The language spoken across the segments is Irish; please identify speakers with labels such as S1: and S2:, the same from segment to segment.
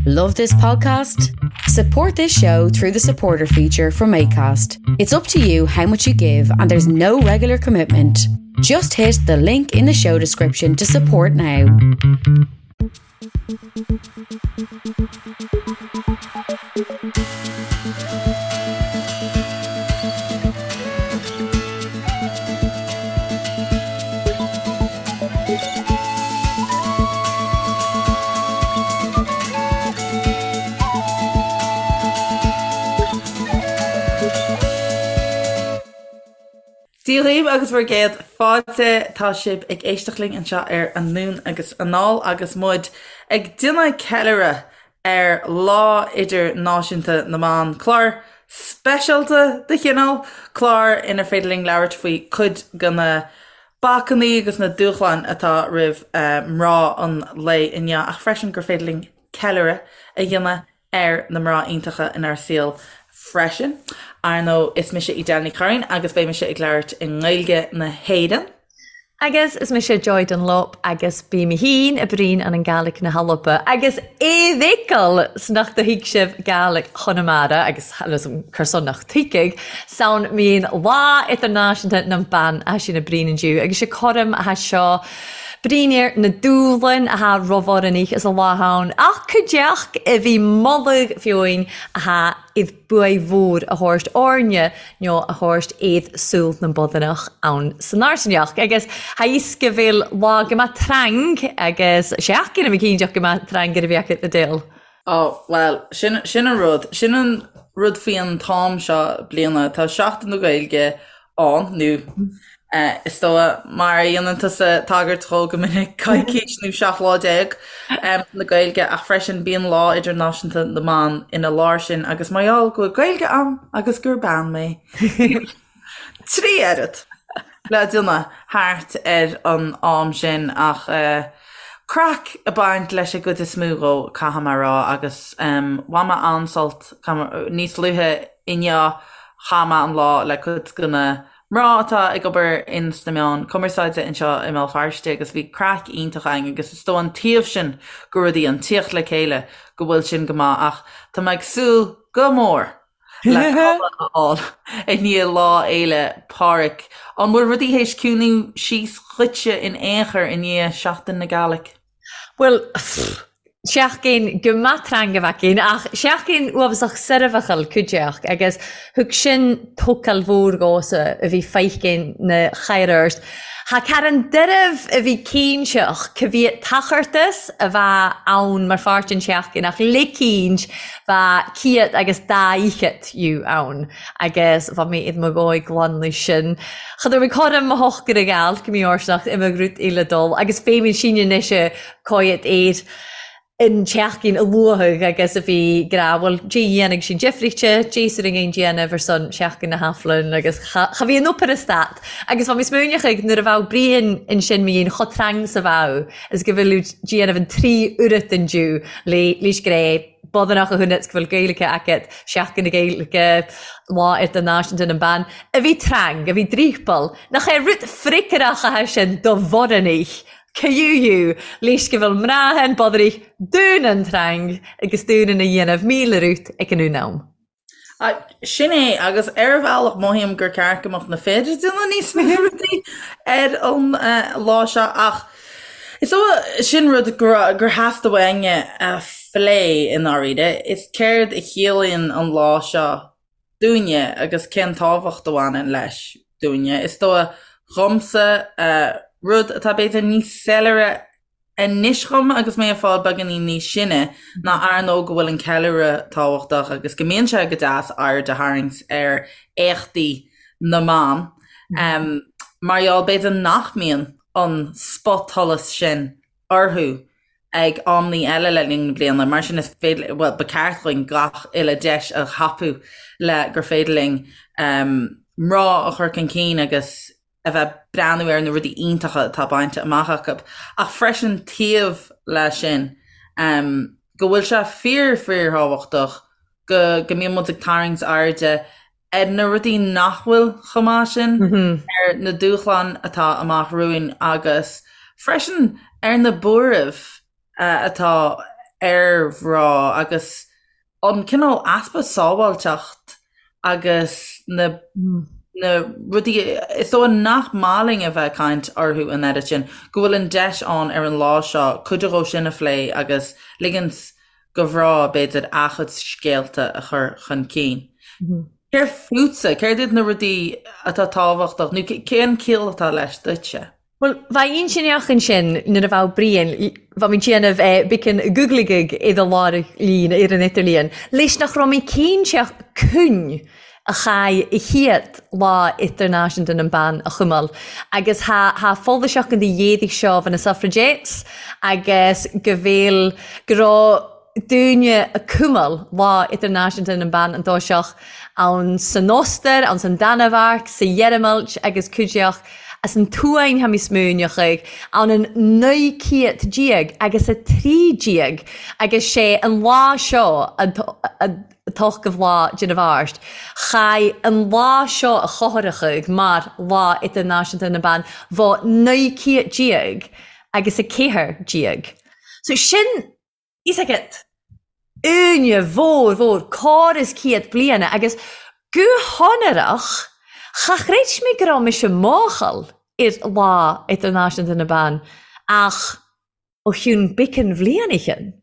S1: Love this podcast? Support this show through the supporter feature from ACAST. It's up to you how much you give, and there's no regular commitment. Just hit the link in the show description to support now.
S2: Dia dhaoibh agus bhur gcéad fáilte. Tá sibh ag éisteacht linn anseo ar Anonn agus Anall agus muid ag déanamh ceiliúradh ar Lá Idirnáisiúnta na mBan, clár speisialta de chineál, clár inar féidir linn labhairt faoi cuid de na bacainní agus na dúshláin atá roimh mná an lae inniu ach freisin gur féidir linn ceiliúradh a dhéanamh ar na mná iontacha inár saol freisin. Ar ndóigh, is mise Edel Ní Churraoin agus beidh mise ag labhairt i nGaeilge na hÉireann.
S3: Agus is mise Joy Dunlop agus bí mi fhìn a' bruidhinn ann an Gàidhlig na h-Alba agus e bhfeiceil 's nach do thuig sibh Gàidhlig Chonamara agus cur son nach tuigfidh 'san mín Lá Idirnáisiúnta nam Ban ath sinn a' bruidhinn indiu agus 's e coram ath seo bruidhinn air na dúbhlain ath roimh orainn is a lá ann ach cuideachd a bhí moladh fiúin ath iad buaidh mhór a thabhairt orainne nó a thabhairt iad súil na mbodhanach ann san Airseanach. Agus tha fhios go bhfuil lá go mbeadh trang agus seachtain a cinnteach go mbeadh trang ar a bheadh na dil.
S2: Ó, bhuel, sin, sin an rud. Sin an rud faoi an t-am seo bliana. Tá Seachtain na Gaeilge ann, nó is dóigh, mar a dhéanann tusa tagairt dhó go minic, coicís nó 17 lá na Gaeilge, ach freisin bíonn Lá Idirnáisiúnta na mBan ina lár sin agus mar gheall go bhfuil Gaeilge a'm agus gur bean mé, bíonn 3 oiread le déanamh thart ar an am sin ach craic ag baint leis an gcuid is mó dhó, caithfidh mé a rá, agus bhain mé an-sult níos luaithe inniu chaith mé an lá le cuid de na mná atá ag obair ins na meáin cumarsáide anseo i mBéal Feirste agus bhí craic iontach againn agus is dóigh an taobh sin de rudaí, an tíocht le chéile, go bhfuil sin go maith ach tá mé ag súil go mór le codladh a fháil i ndiaidh Lá Fhéile Pádraig. An bhfuil rudaí théis ciúnú síos dhuitse in aon chor i ndiaidh Seachtain na Gàidhlig?
S3: Bhuel, seachtain go maith trang a bheadh ann, ach seachtain uafásach soirbheachail cuideachd, agus thug sin tócáil mhór dhomhsa a bhí feicinn na chairrt. Tha carn doirbh a bhí cinnteach ca bhiadh tachartas a bheadh ann mar pháirt den tseachtain ach le cinnt bheadh ciat agus dá fhichead fhiú ann agus bheadh mé id mo dhóigh glan leis sin. Cha raibh mé cothrom mo shochar a gheall go mí árseach i mo ghrút uile dul agus féimid síne anois coiad air an tseachtain a luathadh agus a bhí grá, bhuel, Dé dhéanfaidh sin difríte, Dé sur an déanamh ar son Seachtain na hAiflinn agus cha, cha bhí an obair a stad. Agus bha mi smaoineachadh nuair a bheadh Brian ansin mo dhéin cho trang 's a bheadh is go bhfuil déanamh an trí oiread den Jew le leis gré bodanach a thunet go bhfuil Gaeilge agat, Seachtain na Gaeilge, Lá Idirnáisiúnta na mBan, a bhí trang, a bhí dríopal, nach é rud fricearach atá sin do bhorannaigh Cú leis go bhfuil mná an bodhraigh dún an trang agus dún ina dhéanamh mílearút ag an un am.
S2: Sin é, agus ar bhealach mothaím gur ceart go mbeadh na fir ag déanamh níos mó rudaí ar an lá seo ach is dóigh sin rud gur theastaigh uainne a phlé i ndáiríre, is céard a chiallaíonn an lá seo dúinne agus cén tábhacht a bhaineann leis dúinne. Is dóigh dhomsa, rud atá b'fhéidir níos soiléire anois dhom agus mé ag fáil beagáinín níos sine, ná ar ndóigh go bhfuil an ceiliúradh tábhachtach agus go mbíonn sé go deas aird a tharraingt ar éachtaí na mban, mar gheall b'fhéidir nach mbíonn an spotsholas sin orthu ag amannaí eile le linn na bliana. Mar sin is féidir, bhuel, ba ceart dhúinn gach uile deis a thapú le gur féidir linn mná a chur chun cinn agus a bheith breathnú ar na rudaí iontacha atá bainte amach acu. Ach freisin taobh leis sin, go bhfuil sé fíor fíorthábhachtach go go mbíonn muid ag tarraingt airde ar na rudaí nach bhfuil chomh maith sin, ar na dúshláin atá amach romhainn agus freisin ar na buairimh atá. ar mhná agus an cineál easpa sábháilteacht agus na na rudaí is dóigh nach maith linn a bheith ag caint orthu an oiread sin, go bhfuil an deis ann ar an lá seo cuid dhó sin a phlé agus ligint do mhná, b'fhéidir, a gcuid scéalta a chur chun cinn. Céard fútsa? Céard iad na rudaí atá tábhachtach nó cén ciall atá leis duitse?
S3: Bhuel, bheadh intinneach ansin nuair a bheadh Brian, bheadh mé ag déanamh beacán googligig i do lár líon ar an idirlíon, leis nach raibh mé cinnte cúinn a chaith a chéad Lá Idirnáisiúnta na mBan a chumail agus tha tha foilseachán de dhéadaigh seo bha na suffragettes agus go bhfuil go raibh daoine a cumail Lá Idirnáisiúnta na mBan an dtoiseach ann san Ostair, ann san Danmhairg, sa Gheireamailt agus cuideach as an tSuain tha mi smaoineachaidh, ann an 19 céad agus 13 agus sé an lá seo an t-ochtmhadh lá de na Mhárta. Chaith an lá seo a chothrachadh mar Lá Idirnáisiúnta na mBan bha 19 céad agus 14. So sin Is agat uaine mhór mhór córas céad bliana agus go honrach cha chreid mé go raibh mise máchail ar Lá Idirnáisiúnta na mBan ach ó chionn beacán bhliain ó shin.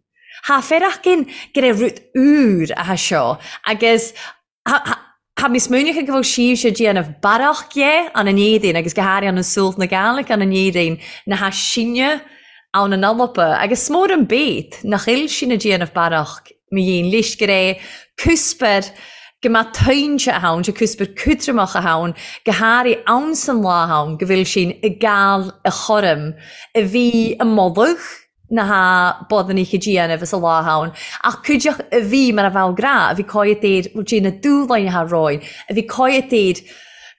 S3: Tha feireachgain go raibh rud úr atha seo agus Tha mi smaoineachadh go bhfuil sibhse ag déanamh barrach dhe ann an Éadaoin agus go háirithe ann an Sualt na Gàidhlig ann an Éadaoin na tha sinne ann an Alba agus 's mór an bét nach fhuil sinn ag déanamh barrach mo dhéin leis gur é cuspair go mbeadh tointe a ann, sé cuspair cútramach a ann, go háirithe ann san lá ann go bhfuil sinn ag gabhail a chorm a bhí i moladh na ha bodannaich a déanamh is a lá ann, ach cuideach a bhí mar a bheadh grá, a bhí cáidh air, bhuel dé na dúshláin atá romhainn, a bhí cáidh air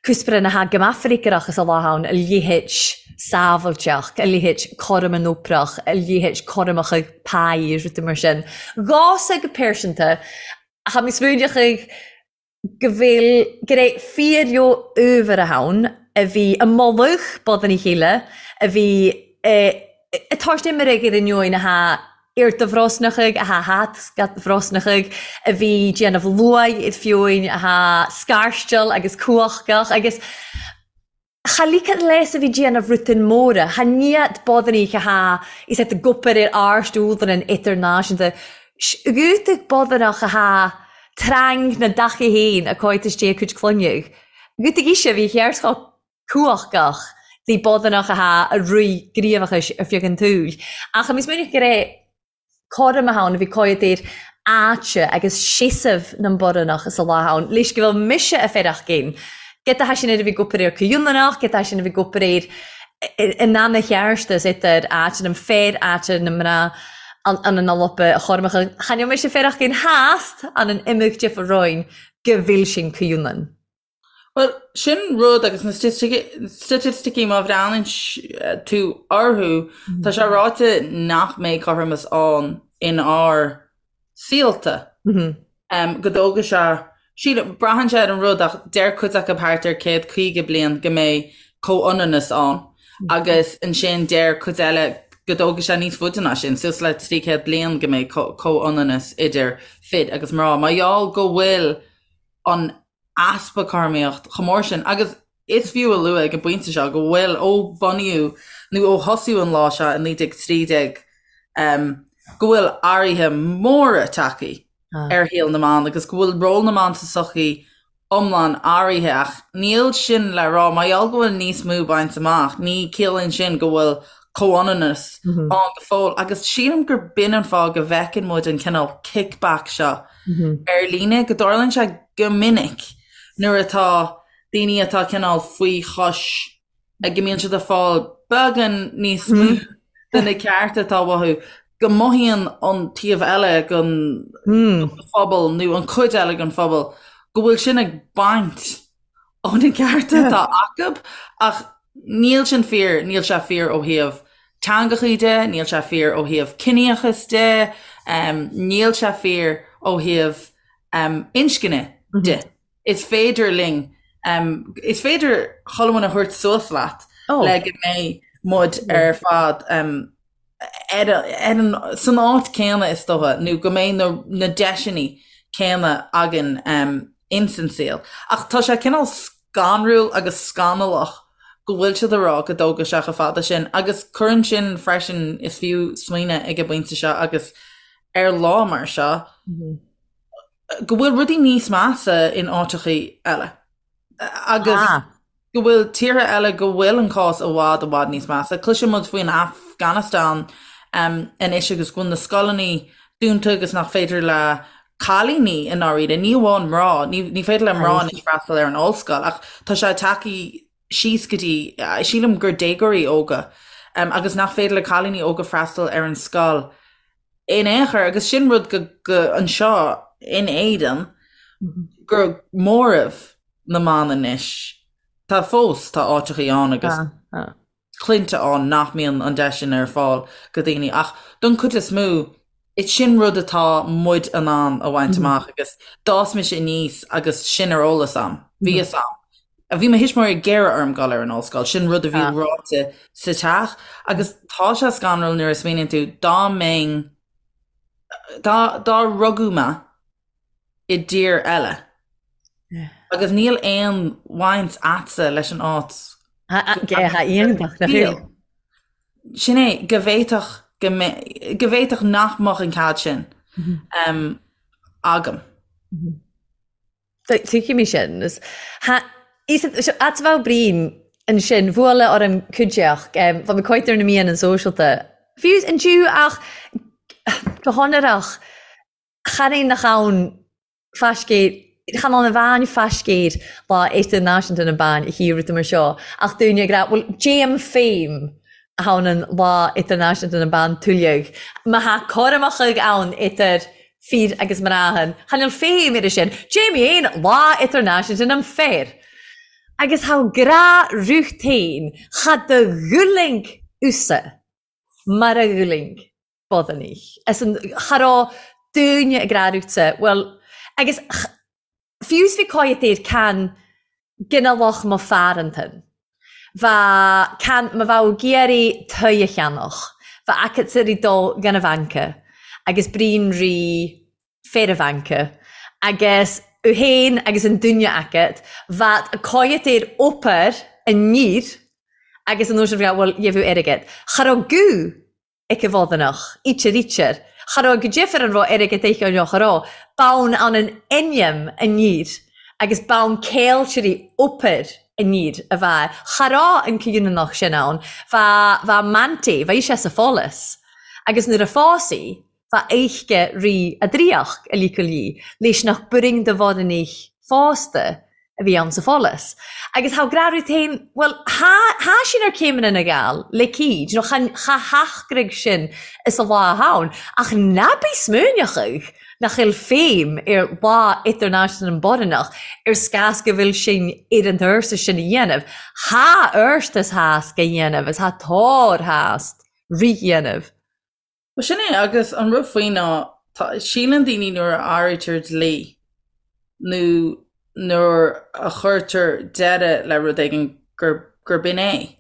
S3: cuspaire na ha go mbeadh is a lá ann, a leithéid sábhailteacht, a leithéid cothrom an oprach, a leithéid cothromacha páí is rudaí mar sin. Dhomhsa go pearsanta, tha mi smaoineachaidh go bhfuil, go raibh fíor uabhar ann a bhí i mullach bodanna a chéile, a bhí ag tabhairt imirigh ar an neoin atá ar do bhrosnachaidh, atá thart bhrosnachaidh, a bhí déanamh luaith ar fiúin, atá scairsteal agus cumhachtach agus. Cha ligeadh leis a bhí déanamh rutain móra, cha niat bodannaich a tha is at gopair ar áirst údaran idirnáisiúnta, 's bodannach a tha trang na dacha fhéin a cóitis dé a cuid clainneadh. Gútaigh ise a bhí cheart chomh cumhachtach bhí bodannach a tha a rith gníomhachais ar feadh an tsaoil. Ach a minic go raibh cothrom ann, a bhí cóid ar áite agus seasamh na mBorannach sa lá ann, leis go bhfuil mise a fearach gin. Giota tha sin ar a bhí gopair ar Comhionannach, giota tha sin a bhí gopair ar in anna cheartas idir áit na bhfear áit na mná an an Alba a chormacha. Chan fheil mise fearach gin theast an an imeacht difear roinn go bhfuil sin Comhionann.
S2: Bhuel, sin rud agus na staitisticí má bhreathnaíonn tú orthu, tá sé ráite nach mbeidh cothromas ann in ár saolta. Go dtógfaidh sé, sílim, braitheann sé ar an rud ach deir cuid acu thart ar 150 bliain go mbeidh comhionannas ann agus ansin deir cuid eile go dtógfaidh sé níos faide ná sin, suas le 300 bliain go mbeidh comhionannas idir fir agus mná. Mar gheall go bhfuil an easpa cothromaíocht chomh mór sin agus is fiú a lua ag an bpointe seo go bhfuil, ó bunaíodh nó ó thosaíodh an lá seo i 1913, go bhfuil athruithe móra tagtha ar shaol na mban agus go bhfuil ról na mban sa tsochaí iomlán athraithe ach níl sin le rá, mar gheall go bhfuil níos mó bainte amach, ní ciallaíonn sin go bhfuil comhionannas ann go fóill agus sílim gur b'in an fáth go bhfeiceann muid an cineál kickback seo ar líne, go dtarlaíonn sé go minic nuair atá daoine atá cineál faoi chois, go mbíonn siad ag fáil beagán níos mó de na cearta atá uathu, go mothaíonn an taobh eile den phobal nó an chuid eile den phobal go bhfuil sin ag baint ó na cearta atá acu ach níl sin fíor, níl sé fíor ó thaobh teangachaí de, níl sé fíor ó thaobh ciníochas de, níl sé fíor ó thaobh inscne de. Is féidir linn, is féidir chuile dhuine a thabhairt suas leat le go mbeidh muid ar fad. Ar an, san áit céanna is dócha, nó go mbeidh na, na deiseanna céanna againn ins an saol. Ach tá sé cineál scanrúil agus scannalach go bhfuil siad ag rá go dtógfaidh sé chomh fada sin agus cuireann sin freisin, is fiú smaoineamh ag an bpointe seo agus ar lá mar seo, go bhfuil rudaí níos measa in áiteachaí eile. Agus go bhfuil tíortha eile go bhfuil an cás i bhfad i bhfad níos measa. Cloiseann muid faoin Afghanistan anois agus go bhfuil na scoileanna dúnta agus nach féidir le cailíní i ndáiríre, ní amháin mná, ní féidir le mná anois freastal ar an ollscoil ach tá sé tagtha síos go dtí, sílim gur déagóirí óga agus nach féidir le cailíní óga freastal ar an scoil in aon chor agus sin rud go, go anseo in Éirinn gur móramh na mban anois. Tá fós, tá áiteachaí ann agus clainne ann nach mbíonn an deis sin ar fáil go daoine ach don chuid is mó is sin rud atá muid in ann a bhaint amach agus d'fhás mise aníos agus sin ar eolas a'm. Bhí fhios a'm. Bhí mo thuismitheoirí ag iarraidh orm dul ar an ollscoil, sin rud a bhí ráite sa teach agus tá sé scanrúil nuair a smaoiníonn tú dá mbeinn, dá, dá rugadh mé i dtír eile agus níl aon bhaint a'dsa leis an áit Sin é, go bhféadfadh go go bhféadfadh nach mbeadh an cead sin agam.
S3: Tuigim é sin. At bheadh Brian ansin, bhuaile orm cuideachd, bha mi coit ar na meadhanan sòisealta. Fiú an Jew ach go hionrach, chan é nach ann faiscéir, chan ann a bhean faiscéir Lá Idirnáisiúnta na mBan a hiarraidh mar seo, ach daoine ag rá, bhuel, déam féim a thabhann an Lá Idirnáisiúnta na mBan tuilleadh, má tha cothromachaidh ann idir fir agus mnàthan, chan eil feidhm air sin, Jamie fhèin Lá Idirnáisiúnta nam Fear. Agus tha gràth ruth fhèin, cha do dhulaing usa mar a dhulaing bodhanaich. As an, cha robh daoine ag rá ruthsa, bhuel, agus Fiú 's bhí cáidheat air can ginealach mo phearantan. Bha can ma bheadh ag iarraidh toigh a cheannach, bha agat ri dul gan a bhanca agus brín ri féar a bhanca agus u fhéin agus an duine agat bheadh cáidheat air obair aniar agus an uair sin bheadh bhuel gheibh airgead. Cha rabh guth ag a bhodhanach, ítear ítear. Cha rabh go difir an rabh airgead aici nó cha rabh. Bonn ann an ainm aniar agus bonn céiltirí obair aniar a bha. Cha rabh an comhionannach sin ann. Bha, bha Manty, bha ise sa pholas. Agus nuair a phós í, bha oidhche rí a draíocht a ligeadh léi, leis nach b'fhurraing do bhodhanaich fásta a bhí ann sa pholas. Agus thá grá Ruth fhéin, bhuel, thá, thá sin ar céimeanna na Gall, le cíd, nó chan, cha heachtraigh sin is a lá ann, ach ná bí smaoineachadh nach eil féim ar Lá Idirnáisiúnta na mBodhanach ar scás go bhfuil sinn ar an turas sin a dhéanamh. Thá ort is thásc a dhéanamh is thá tóir thást rith dhéanamh.
S2: Bhuel, sin é, agus an rud faoi ná, tá, síleann daoine nuair a athraítear dlí nó nuair a chuirtear deireadh le rud éigin gur, gur b'in é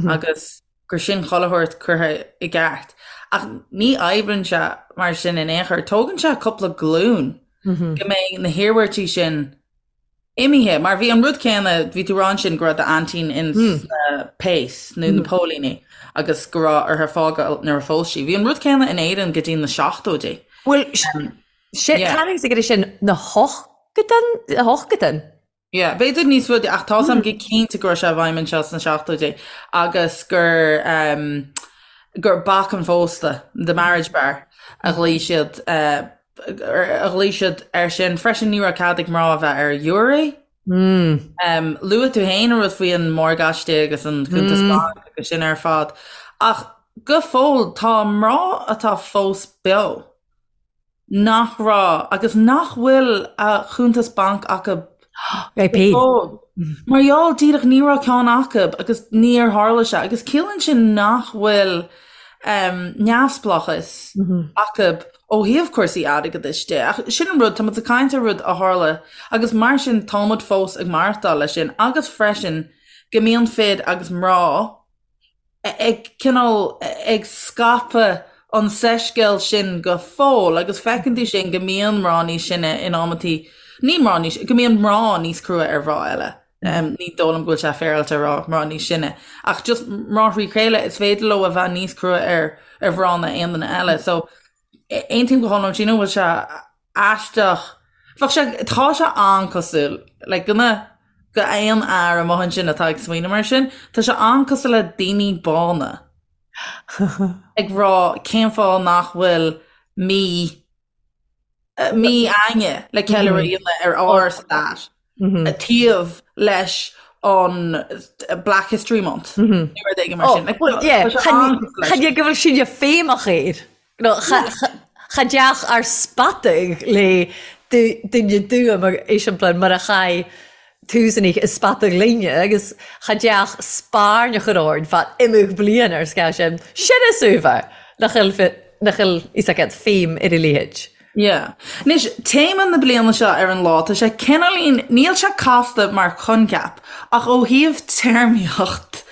S2: agus gur sin chuile shórt curtha i gceart. Ach ní oibríonn sé mar sin in aon chor. Tógann sé cúpla glúin go mbeidh na hiarmhairtí sin imithe, mar bhí an rud céanna, bhí tú ag rá ansin go raibh d'aintín ins na péas nó na póilíní agus go raibh uirthi fágáil nuair a phós sí. Bhí an rud céanna in Éirinn go dtí na seachtóidí.
S3: Bhuel, sin, yeah. ag sin na hochgadan, na hochgadan.
S2: Yeah, b'fhéidir níos faide ach tá a fhios a'm go cinnte go raibh sé i bhfeidhm anseo sna seachtóidí agus gur um, gur bac an phósta, the marriage bar, a ghlaoigh siad uh, a ghlaoigh siad air sin. Freisin ní raibh cead ag mná a bheith ar ghiúiré. Luaigh tú féin an rud faoi an morgáiste agus an cuntas bainc agus sin ar fad. Ach go fóill tá mná atá fós beo nach raibh agus nach bhfuil a chuntas bainc acu go fóill. Mar gheall díreach ní raibh ceann acu agus níor tharla sé agus ciallaíonn sin nach bhfuil neamhspleáchas acu ó thaobh cúrsaí airgeadais de. Ach sin an rud, tá muid ag caint ar rud a tharla agus mar sin tá muid fós ag maireachtáil leis sin agus freisin go mbíonn fir agus mná ag cineál ag scaipeadh. an soiscéal sin go fóill agus feiceann tú sin go mbíonn mná níos sine in amantaí, ní mná níos, go mbíonn mná níos crua ar mhná eile. Ní dóigh liom go bhfuil sé féaráilte a rá mná níos sine, ach just mná thrí chéile, is féidir leo a bheith níos crua ar ar mhná ná aon duine eile. So aontaím go hiomlán, sílim go bhfuil sé aisteach, bheadh sé, tá sé an-cosúil le go na, go aon fhear amuigh ansin atá ag smaoineamh mar sin, tá sé an-cosúil le daoine bána ag rá cén fáth nach bhfuil mí, mí againne le ceiliúradh a dhéanamh ar ár stair taobh leis an Black History Month nó rud éigin mar sin.
S3: Tá sé an-cosúil leis. Chan é go bhfuil sinne feidhmeach air. Cha dteach ár spatadh le duine dua mar eiseampla mar a chaith túsanna i spatadh linne agus cha dteach spairn a chur orainn fad imeadh bliain ar scáth sin. Sin is uabhar nach bhfuil nach bhfuil fhios agat feidhm ar a leithéid.
S2: Yeah. Anois, téama na bliana seo ar an lá, tá sé cineáilín, níl sé casta mar choincheap, ach ó thaobh téarmaíocht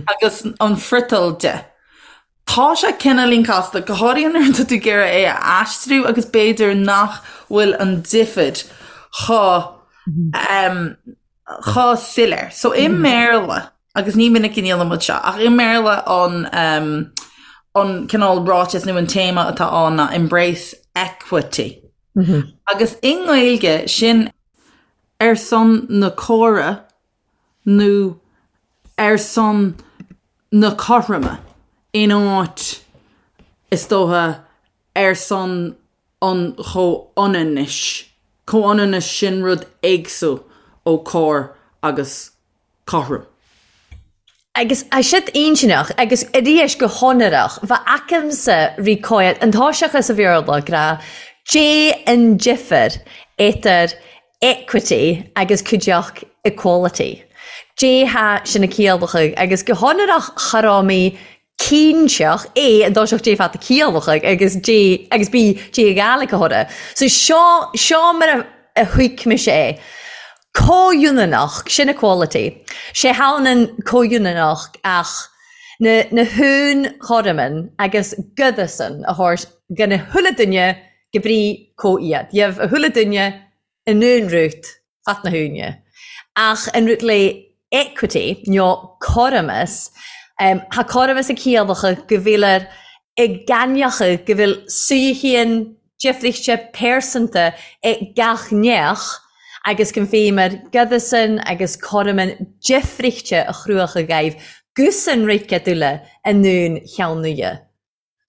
S2: agus an friotal de, Tá sé cineáilín casta, go háirithe nuair atá tú ag iarraidh é a aistriú agus b'fhéidir nach bhfuil an difear chomh chomh soiléir. So i mBéarla, agus ní minic a ndéanann muid seo, ach i mBéarla an an cineál ráiteas nó an téama atá ann ná embrace equity. Agus i nGaeilge sin ar son na córa nó ar son na cothroime in áit, is dócha, ar son an chomhionannais. Comhionannas, sin rud éagsúil ó cóir agus cothrom.
S3: Agus tá siad intinneach agus arís go hionrach, bheadh aicimse rí cóir an toiseacha sa Bhéarla, grá Dé an difear idir equity agus cuideachd equality. Dé tha sin a ciallachaidh agus go hionrach cha raibh mé cinnteach A an dtoiseacht Dé fad a ciallachaidh agus Dé agus B Dé a Gàidhlig a thoradh. So seo seo mar a a thuig mise é. Comhionannach, sin equality. Sé h-ionann comhionannach ach na na h-aon-chothroman agus giodasan a thabhairt dho na h-uile duine go brí comh-iad. Gheibh a chuile duine an aon rút fat na húine. Ach an rút le equity nó cothromas, tha cothromas ag ciallacha go bhfuil i gcainneacha go bhfuil suidhean difríchte pearsanta ag gach neach agus go bhféimir giodasan agus cothroman difríchte a chruacha dhaibh gusan rice dúile an aon cheann nuidhe.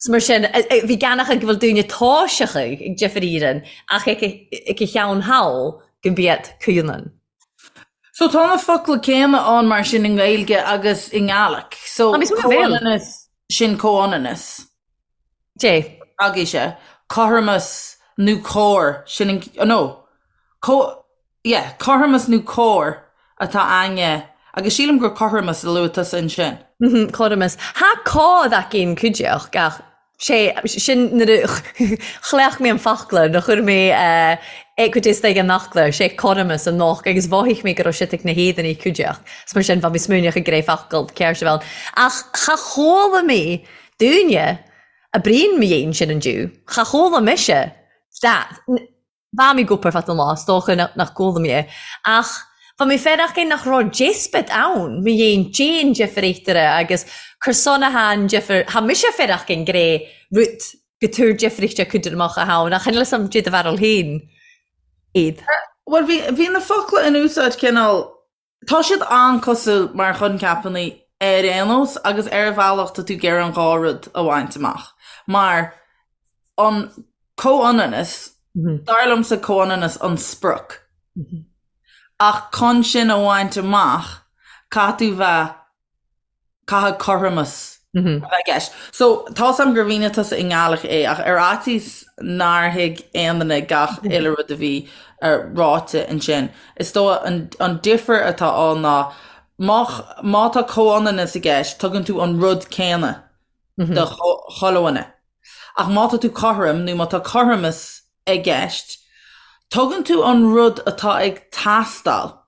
S3: 'S mar sin, bhí geanach go bhfuil daoine toiseacha ag difear Éireann ach ag a cheann thall go mbiad comhionann.
S2: So tá na focla céanna ann mar sin i nGaeilge agus i nGaelic. So comhionannas, sin comhionannas.
S3: Dé.
S2: Agaibhse. Cothromas nó cóir, sin an, no, co, Yeah, cothromas nó cóir atá againne agus sílim gur cothromas a luaigh tusa ansin.
S3: Mhm, cothromas. Tha còd againn cuideachd ach sé sin nuair a chleacht mé an focla nuair a chuir mé equity istigh an fhocla, sé cothromas an noch agus mhothaigh mé go raibh siad ag na héadanaí cuideachd. 'S mar sin bha mi smaoineach ag gré focal ceart a bheith ann. Ach cha chuala mé dúinne a bruíon mo dhéin sin an diú. Cha chuala mise that. Bha mi ag obair fad an lá, is dócha nach gcuala mé é. Ach bha mi feireach é nach robh diospóid ann, mo dhéin déan difir eatarthu agus cur son a tha an difir, tha mise feireach gin gré rud go tabhair difríocht cuid amach a tha ann, ach chan eil 'fhios a'm dè do bharúil féin iad.
S2: Bhuel, bhí, bhí na focla in úsáid cineál Tá siad an-cosúil mar choincheapanna ar aon nós agus ar bhealach tá tú ag iarraidh an dhá rud a bhaint amach mar an comhionannas, dar liomsa comhionannas an sprioc ach chun sin a bhaint amach caithfidh tú bheith Caithfidh cothromas a bheith i gceist. So, tá's a'm gur mhínigh tusa i nGaelic é, ach ar fhaitíos nár thuig aon duine gach uile rud a bhí ráite ansin, is dóigh an difear atá ann ná má má tá comhionannas i gceist, tugann tú an rud céanna do chuile dhuine. Ach má tá tú cothrom nó má tá cothromas i gceist, tugann tú an rud atá ag teastáil.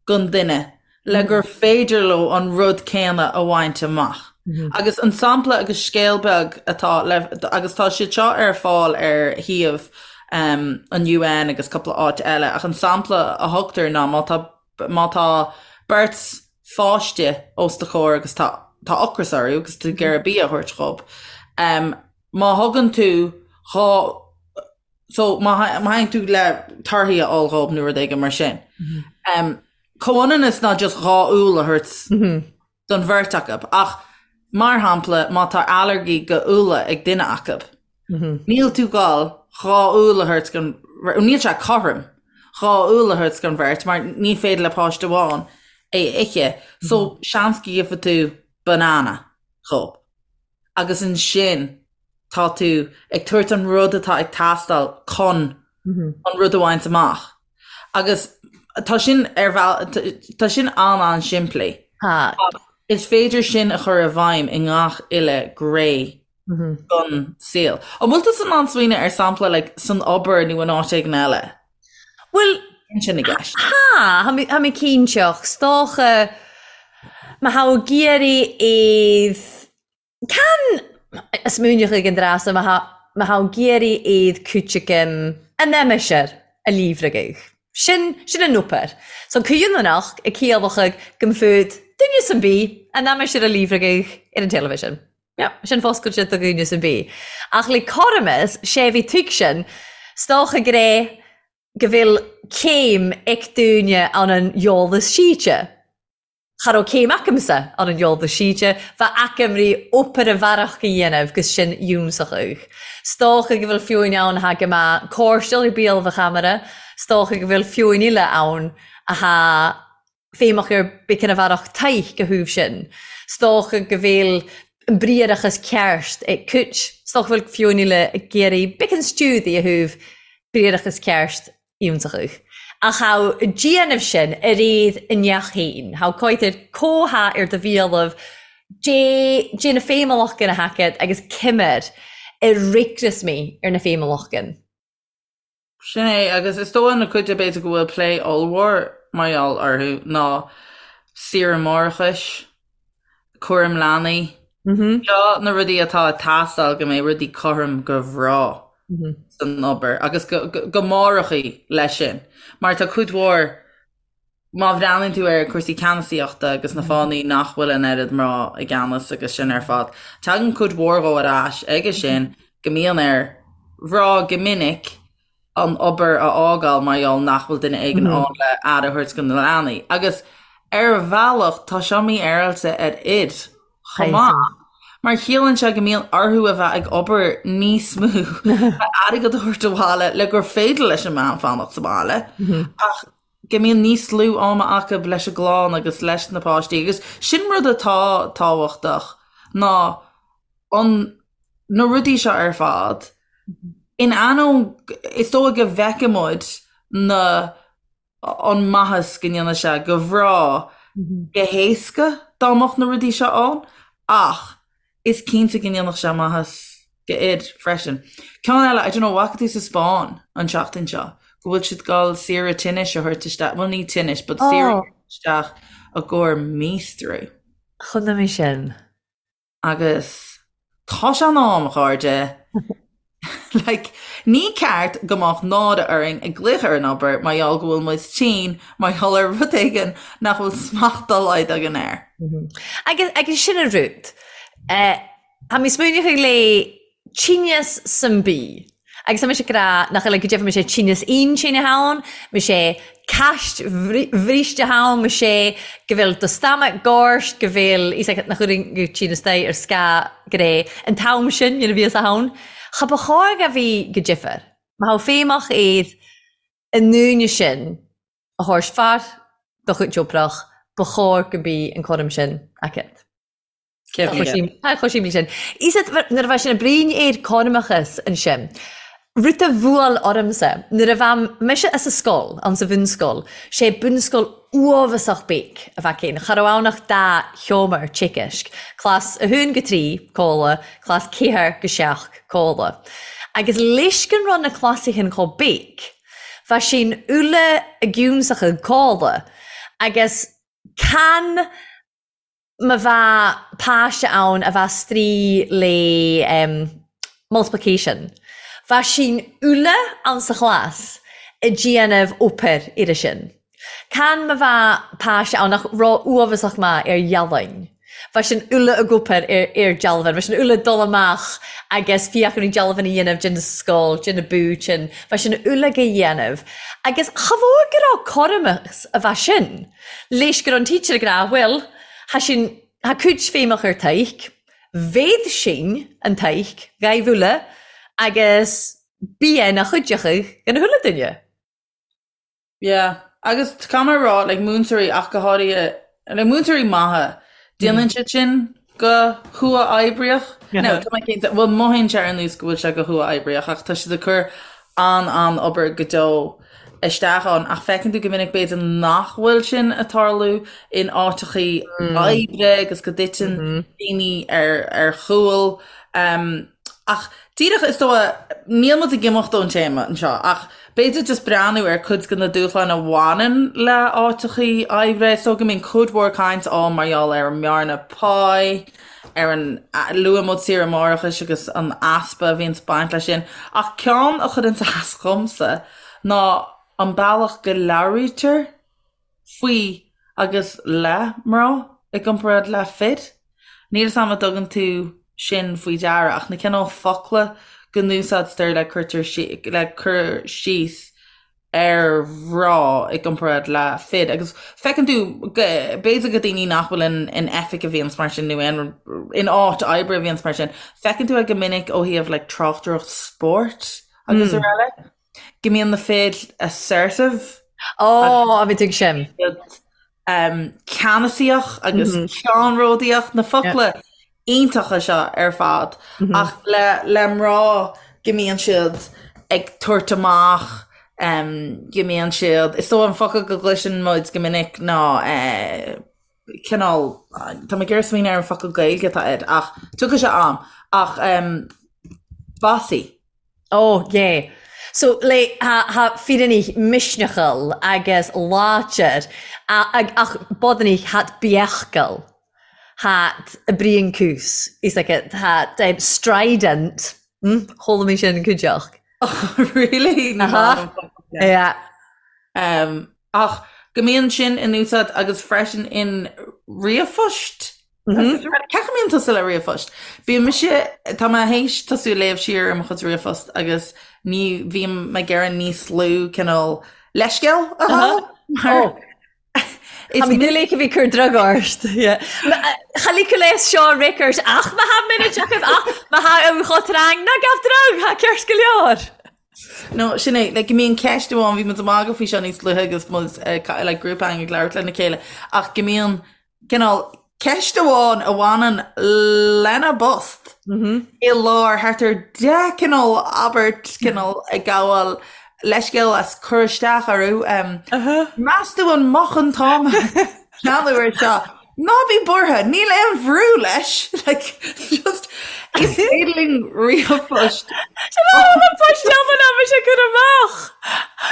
S2: don duine le gur féidir leo an rud céanna a bhaint amach. Agus an sampla agus scéal beag atá le, agus tá siad seo ar fáil ar shuíomh an UN agus cúpla áit eile, ach an sampla a thugtar ná má tá, má tá beirt pháiste os do chomhair agus tá, tá ocras orthu agus tú ag iarraidh bia a thabhairt dhób, má thugann tú dhá, so má théann tú le torthaí a fháil dhób nó rud éigin mar sin, comhionannas ná just dhá úll a thabhairt don bheirt acu, ach mar shampla má tá ailléirgí go úlla ag duine acu, níl tú gabháil dhá úll a thabhairt don, níl sé cothrom dhá úll a thabhairt don bheirt mar ní féidir le páiste amháin é a ithe, so seans go gheobhaidh tú banana dhób agus ansin tá tú ag tabhairt an rud atá ag teastáil chun an rud a bhaint amach. Agus tá sin ar bhealach, tá sin an-an-simplí.
S3: Tá.
S2: Is féidir sin a chur i bhfeidhm i ngach uile ghné den saol. An bhfuil tusa in ann smaoineamh ar sampla like, san obair nó in áit éigin eile?
S3: Bhuel,
S2: sin i gceist.
S3: Tá, tá mé cinnte, ach 's dócha má tha ag iarraidh iad Can smaoineach ag an dreasa má tha ag iarraidh iad cúiteachaim an aimsir a líomhragadh. Sin, sin an obair. So cuimhneach ag ciallachadh go mb'fhuad duine san bith an aimsir a líomhragadh ar an television. Yeah, sin foscailte do dhuine san bith. Ach le cothromas, sé bhí tuigsin, 's dócha go raibh go bhfuil céim ag duine ann an eolas síte. Cha raibh céim acamsa ann an eolas síte, bha aicim ri obair a bhearach a dhéanamh gus sin iúnsachadh. 'S dócha go bhfuil fiúin ann atá go maith cóirsteáil ar bíol bha chamara, 's dócha go bhfuil fiúin eile ann athá feidhmeach ar bith cinn a bhearach taith go thaobh sin. 'S dócha go bhfuil an briathrachas ceart ag cuid, 's dócha go bhfuil fiúin eile ag iarraidh bith cinn stiúdaí a thaobh briathrachas ceart iontachadh. Ach thá déanamh sin ar iad i ndeach féin. Thá coitir comhtha ar do bhialann dé dé na féimeallachgan a thaicéad agus cimir ar ricreas mé ar na féimeallachgan.
S2: Sin é, agus is dóigh na cuid de b'fhéidir go bhfuil plé ollmhór mar gheall orthu ná saoire máithreachais, cúram leanaí. Seo na rudaí atá ag teastáil go mbeidh rudaí cothrom go mná san obair agus go máithreachaí leis sin. Mar tá cuid mhór, má bhreathnaíonn tú ar cúrsaí ceannasaíochta agus na fáthanna nach bhfuil an oiread mná i gceannas agus sin ar fad, tagann cuid mhór dhó ar ais aige sin go mbíonn ar mhná go minic an obair a fhágáil mar gheall nach bhfuil duine éigin ann le aire a thabhairt do na leanaí. Agus ar bhealach tá seo mífhéaráilte ar fhir chomh maith, mar chiallaíonn sé go mbíonn orthu a bheith ag obair níos mó le airgead a thabhairt abhaile le gur féidir leis an mbean fanacht sa bhaile, ach go mbíonn níos lú ama acu leis an gclann agus leis na páistí. Agus sin rud atá tábhachtach ná an na rudaí seo ar fad, in ainneoin, is dóigh go bhfeiceann muid na, an maitheas go ndéanann sé go mná go héasca dá mbeadh na rudaí seo ann, ach is cinnte go ndéanfadh sé maitheas go fhir freisin. Ceann eile, I don't know, bhfaca tú sa Spáinn an tseachtain seo go bhfuil siad ag dul saoire tinnis a thabhairt isteach, bhuel ní tinnis, but saoire a thabhairt isteach i gcomhair míostrú.
S3: Chonaic mé sin.
S2: Agus tá sé in am, a chairde. Like, ní ceart go mbeadh náire orainn ag glaoch ar an obair mar gheall go bhfuil muid tinn mar gheall ar rud éigin nach bhfuil smacht dá laghad againn air.
S3: Agus, agus sin an rud. Tá mé smaoineachadh le tinneas san bith. Agus tá mise ag rá nach eile go deimhin sé tinneas intinne ann, me sé ceist bhríste ann, me sé go bhfuil do stomach gorst, go bhfuil fhios agat nach bhfuil go tinneas dé ar scáth gré an t-am sin nuair a bhíos ann. Cha ba chóir a bhí go difear. Má thá feidhmeach iad i ndúine sin a thabhairt fear do chuid oibrach, ba chóir go mbí an cúram sin aici. Tá chomh simplí sin. Is nuair a bheidh sin ag bruíon ar cothramachas ansin, rud a bhuail ormsa, nuair a bheadh mise as an scoil, ann sa bhunscoil, sé bunscoil uafasach beag a bheadh ann, cha raibh ann ach dá sheomra teagaisc, clás 1-3, comhla, clás 4-7, comhla. Agus leis go raibh na clásaithe chomh beag, bheadh sin uile i gciúnsach ag comhla, agus can. Ma bha pàiste ann a bha straoi le multiplication, bha sinn uile anns a chlas a' dìanamh obair air sin. Can ma bha pàiste ann nach robh uabhasach math air dhealbhain, bha sinn uile ag obair air dealbhain, bha sinn uile ag dul amach agus fiachaint dealbhain a dhéanamh den sgoil, de na búitinn, bha sinn uile ga dhéanamh. Agus cha mhór go raibh cothromas a bha sin. Leis go raibh an teacher ag rá, bhuel, tha sin, tha cuid feidhmeach ar taidhg, bhéad sin an taidhg, ghaibh uile, agus bí é ina chuideachadh gona chuile duine.
S2: Yeah. Agus caithfidh mé a rá, like, múinteoirí ach go háirithe, like, múinteoirí maithe, déanann siad sin go huathoibríoch. No, tá mé cinnte, bhuel, mothaíonn sé ar nós go bhfuil sé go huathoibríoch ach tá siad ag cur an-an-obair go deo isteach ann ach feiceann tú go minic b'fhéidir nach bhfuil sin ag tarlú in áiteachaí oibre agus go dtiteann daoine ar ar chúl. Ach díreach is dóigh, níl muid ag imeacht ón téama anseo ach b'fhéidir just breathnú ar cuid de na dúshláin a bhaineann le áiteachaí oibre. Is dóigh go mbíonn cuid mhór caint ann mar gheall ar an mbearna pá, ar an, luaigh muid saoire máithreachais agus an easpa a bhíonns ag baint leis sin. Ach ceann a chuireanns as dhomsa ná an bealach go labhraítear faoi agus le mná i gcomparáid le fir. Níl 'fhios a'm an dtugann tú sin faoi deara ach na cineál focla go n-úsáidtear le cuirtear le cur síos ar mhná i gcomparáid le fir agus feiceann tú b'fhéidir go daoine nach bhfuil in in oifig a bhíonns mar sin nó aon in áit oibre a bhíonns mar sin, feiceann tú é go minic ó thaobh like tráchtaireacht spóirt agus araile. Go mbíonn na fir assertive.
S3: Ó, a bhí tú ag sin.
S2: Ceannasaíoch agus ceannródaíoch, na focla iontacha seo ar fad. Ach le le mná go mbíonn siad ag tabhairt amach, go mbíonn siad, is dóigh an focal go gcloiseann muid go minic ná cineál, tá mé ag iarraidh smaoineamh ar an focal Gaeilge atá air ach tiocfaidh sé a'm, ach bossy.
S3: Oh yeah. So le tha tha fireannaich misneachal agus láidir ach bodannaich that beachgal that a' bruidhean cùs is like it that strident hm chuala mi sin cuideachd.
S2: Oh really? Ní
S3: Aha.
S2: maith liom focal sin.
S3: Yeah.
S2: Um, ach go mbíonn sin in úsáid agus freisin in ríomhphost. Cén chaoi a mbíonn tusa le ríomhphost? Bíonn mise, tá mé théis tosú ag léamh siar ar mo chuid ríomhphost agus ní bhím ag iarraidh níos lú cineál leithscéal a fháil. Mar
S3: Is Tá mé a bhí cur drog ort. Cha ligeadh léas seo record ach má tha muid ach má tha an chotráin ná gabh drog tha ceart go leor.
S2: No, sin é, like, go mbíonn ceist amháin, bhí muid ag magadh faoi seo níos luaithe agus muid eh, like, grúpa againn ag labhairt lena chéile, ach go mbíonn cineál ceist amháin a bhaineann lena bpost i lár thart ar 10 cineál abairt cineál ag gabháil leithscéal as cur isteach orthu. Meas tú an moch an t-am ceannú ar seo? Ná bí buartha, níl aon bhrú leis! Like, just, is féidir linn ríomhphost.
S3: Post eile ná bhí sé cur amach.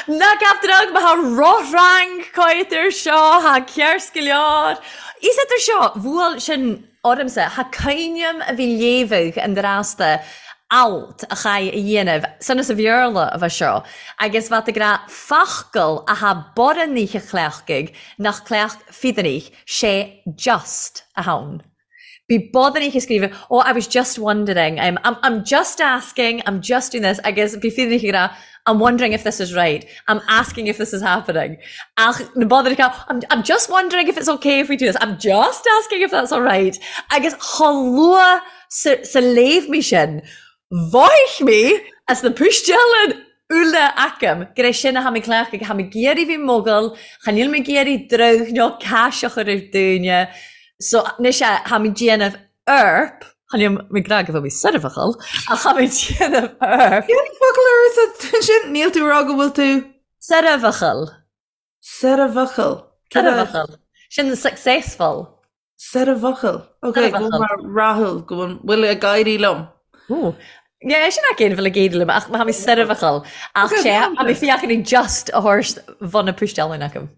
S3: Ná gabh drog má tha rothrang cáit air seo, tha ceart go leor. Is idir seo, bhuail sin ormsa, tha cuimhneam a bhí léamhadh an drasta alt a chaith a dhéanamh, sonas a Bhéarla a bheith seo, agus bheadh ag rá focal a tha borradh oíche chleachtaidh nach cleacht fiadanaich, sé just a thonn. Bhí bodannaich ag scríobh, oh I was just wondering, I'm, I'm, I'm just asking, I'm just doing this, agus bhí fiadanaich ag rá, I'm wondering if this is right, I'm asking if this is happening. Ach na bodannaich ag rá, I'm, I'm just wondering if it's okay if we do this, I'm just asking if that's alright. Agus chomh luath sa, sa léamh mé sin, mhothaigh mé as na puisteálainn uile agam gur é sin a tha mi cleachtadh, tha mi ag iarraidh bhith mogall, cha níl mé ag iarraidh drog nó cais a chur ar daoine, so anois eh, tha mi déanamh erp, cha níl mé ag rá go bhfuil mé soirbheachal, ach tha mi déanamh erp.
S2: Cén focal a úsáid tú ansin? Níl tú ag rá go bhfuil tú.
S3: Soirbheachal.
S2: Soirbheachal.
S3: Soirbheachal. Sin successful.
S2: Soirbheachal. Ok, go bhfuil mé rathúil, go bhfuil ag éirí liom.
S3: Ooh. Yeah, sin nach aon bhfuil ag éirí liom, ach tha mi soirbheachal. Ach sé, tha mi fiachain just a thabhairt bhun na puisteálainn agam.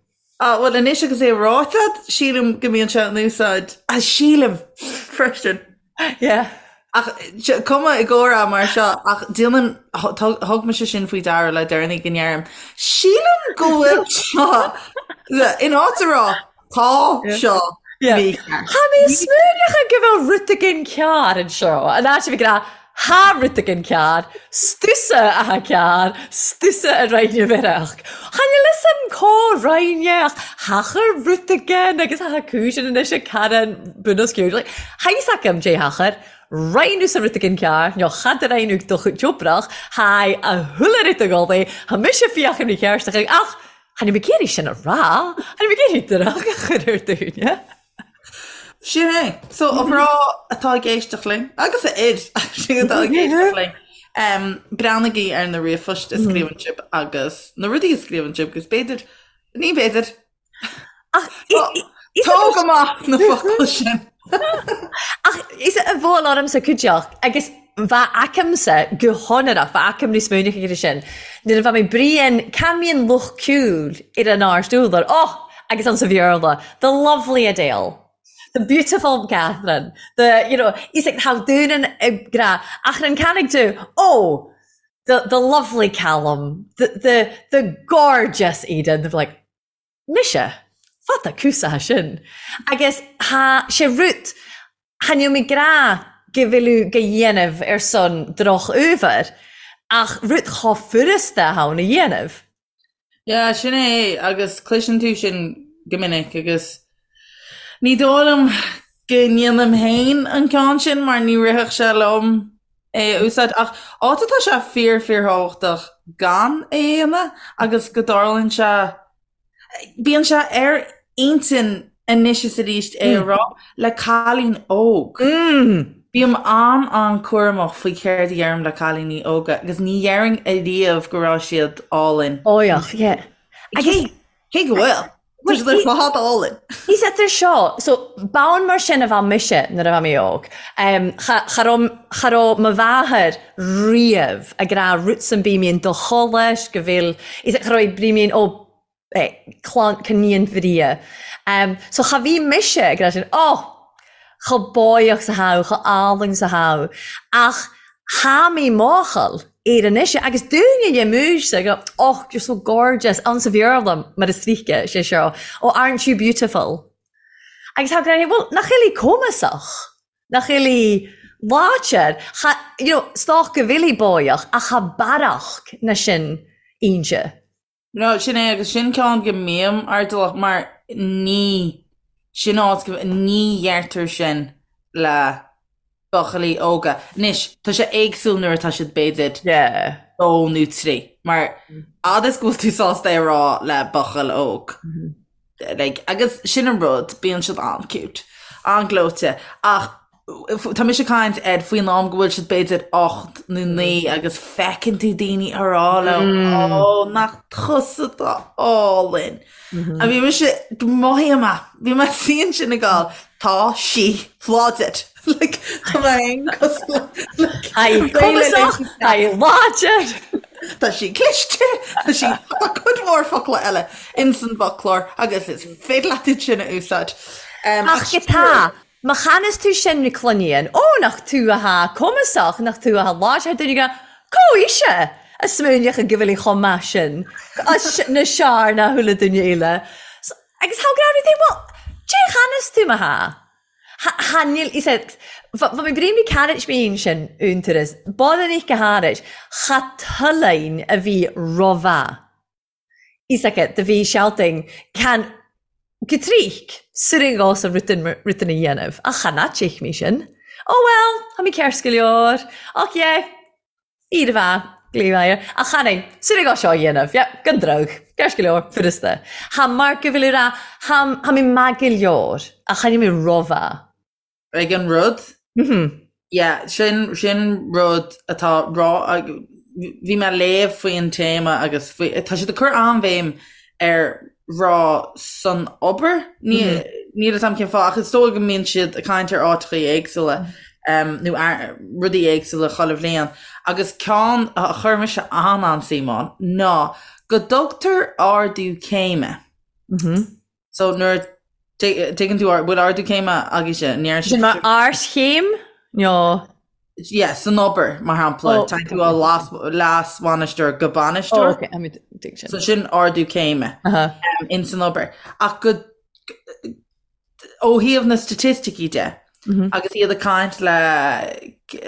S2: Ah, bhuel anois agus é ráite agat, sílim go mbíonn sé in úsáid, ah, sílim freisin.
S3: Yeah.
S2: Ach cuma i gcomhrá mar seo, ach déanaim, thug mise sin faoi deara le deireanaí go ndeirim, sílim go bhfuil seo, in áit a rá, tá seo
S3: mícheart. Tha mi a' smaoineachadh gu bheil rud eigin ceàrr anseo, an áit a bhith ag ràdh Tha rud eigin ceàrr, 's tusa a tha ceàrr, 's tusa a rinne mheireach. Chan eil fhios a'm có rinne ach thachair rud eigin agus tha cùisean anois ag Karen bunoscionn. Like, tha fhios agam dè thachair, rinne thusa rud eigin ceàrr, no cha do rinn thu do chuid oibrich, tha a h-uile rud ag dul é, tha mise fiachain ri-cheàrtach ach chan eil mi ag iarraidh sin a ràdh, chan eil mi ag iarraidh droch a chur air daoine.
S2: Sin é. So, a mhná atá ag éisteacht linn, agus a fhir actually atá ag éisteacht linn, um, breathnaigí ar na ríomhphoist a scríobhann sibh agus na rudaí a scríobhann sibh agus b'fhéidir, ní b'fhéidir,
S3: Ach
S2: tóg amach na focail sin.
S3: Ach is a bhuail ormsa cuideachd agus bha agamsa gu h-onrach, bha agam níos smaoineachadh air sin, nuair a bha mi bruidhinn can mbíonn lucht cùil air an àrd údar, oh! agus anns a' Bheurla, the lovely Adele, the beautiful Catherine, the, you know, is like tha daoine ag ràdh, ach ran canaig tu, oh! the, the lovely Callum, the, the, the gorgeous Eden, they're like, Mise? Fada cúsaithe sin. Agus tha sé rud, chan eil mi ag ràdh gu bheil thu ga dhéanamh air son droch-uabhar, ach rud cho furasta a th' ann a dhéanamh.
S2: Yeah, sin é, agus cloiseann tú sin go minic agus ní dóigh liom go ndéanaim féin an ceann sin mar ní rithfeadh sé liom é a úsáid ach áit atá sé fíor fíorthábhachtach gan é a dhéanamh agus go dtarlaíonn sé, bíonn sé ar intinn anois is arís é a rá le cailín óg. Bím an-an-cúramach faoi céard a dheirim le cailíní óga agus ní dhéarfainn ariamh go raibh siad álainn.
S3: Óigheach, yeah.
S2: Agus Cé go bhfuil? Tá siad ar fad álainn.
S3: Is idir seo, so bonn mar sin a bha mise nuair a bha mé óg. Cha, cha raibh, cha raibh mo mháthair riamh ag rá rud san bith mín do cholais go bhfuil, is cha raibh brí mín ó eh, clann, cníon bhria. So cha bhí mise ag rá sin, oh, cho báidheach 's a tha thu, cho álainn 's a tha thu. Ach tha mi máchail. Ar anois agus dúinne dhe múis go oh you're so gorgeous ann sa Bhéarla mar is tríce sé seo oh aren't you beautiful agus tá gráinne bhuel nach eil i cumasach nach eil i láidir cha you know 's dócha go bhfuil i báidheach ach cha bearach na sin inse.
S2: No, sin é agus sin ceann go mbím airdeallach mar ní, sin áit go, ní dheirtear sin le buachaillí óga. Anois, tá sé éagsúil nuair atá siad b'fhéidir
S3: Yeah.
S2: dó nó trí, mar fhad is go bhfuil tú sásta é a rá le buachaill óg. Like, agus sin an rud, bíonn siad an-cute, an-ghleoite, ach tá mise ag caint ar faoin am go bhfuil siad b'fhéidir 8 nó 9 agus feiceann tú daoine ag rá leo, ó, nach tusa atá álainn. A bhí mise, mothaím é, bhí mé suí ansin ag gabháil, tá sí láidir. Like, tá mé féin cosúil le, like,
S3: Tá í cumasach, tá í láidir.
S2: Tá sí cliste, tá sí, tá cuid mhór focla eile ins an bhfoclóir agus is féidir leat iad sin a úsáid.
S3: Um, Ach go tá, má chanas tú sin na cluiníonn, ó nach tú atá cumasach, nach tú atá láidir, duine go, có ise a smaoineach go bhfuil í chomh maith sin, na seár ná chuile duine eile. Agus thá grá rith é, well, dé chanas tú má thá? Tha níl is ea bha mi brim ri cairit mín sin iontaras bod an go hairit cha tuillein a bhí ro-mhaith is aice do bhí shouting can go tríc suirin dhos a rutan rutan a dhéanamh ach chan fhaitich mí sin oh well tha mi ceart go leor ach yeah Fíor mhaith, glaoigh Ach chan é, súil ag seo a dhéanamh, yeah, gan drug, ceart go leor, furasta. Tha mar go bhfuil rá, tha, tha mi maith go leor, ach chan eil mi ro-mhaith.
S2: Ag an rud?
S3: Mhm.
S2: Yeah, sin, sin rud atá rá, bhí mé ag léamh faoin téama agus faoi, tá siad ag cur an-bhéim ar rá san obair. Níl a fhios agam cén fáth, ach is dóigh go mbíonn siad ag caint ar áiteachaí éagsúla nó rudaí éagsúla chuile bhliain. Agus ceann a chuir mise an-an-suim ann ná go dtugtar ardú céime. So nuair tuigeann tú bhfuil ardú céime agaibhse, ní
S3: Sin mar ardchéim nó?
S2: Yeah, san obair, mar shampla, tá tú ó leas-bhainisteoir go bainisteoir.
S3: Oh, okay, tuig
S2: sin. So sin ardú céime in san obair. Ach go ó thaobh na staitisticí de, agus iad ag caint le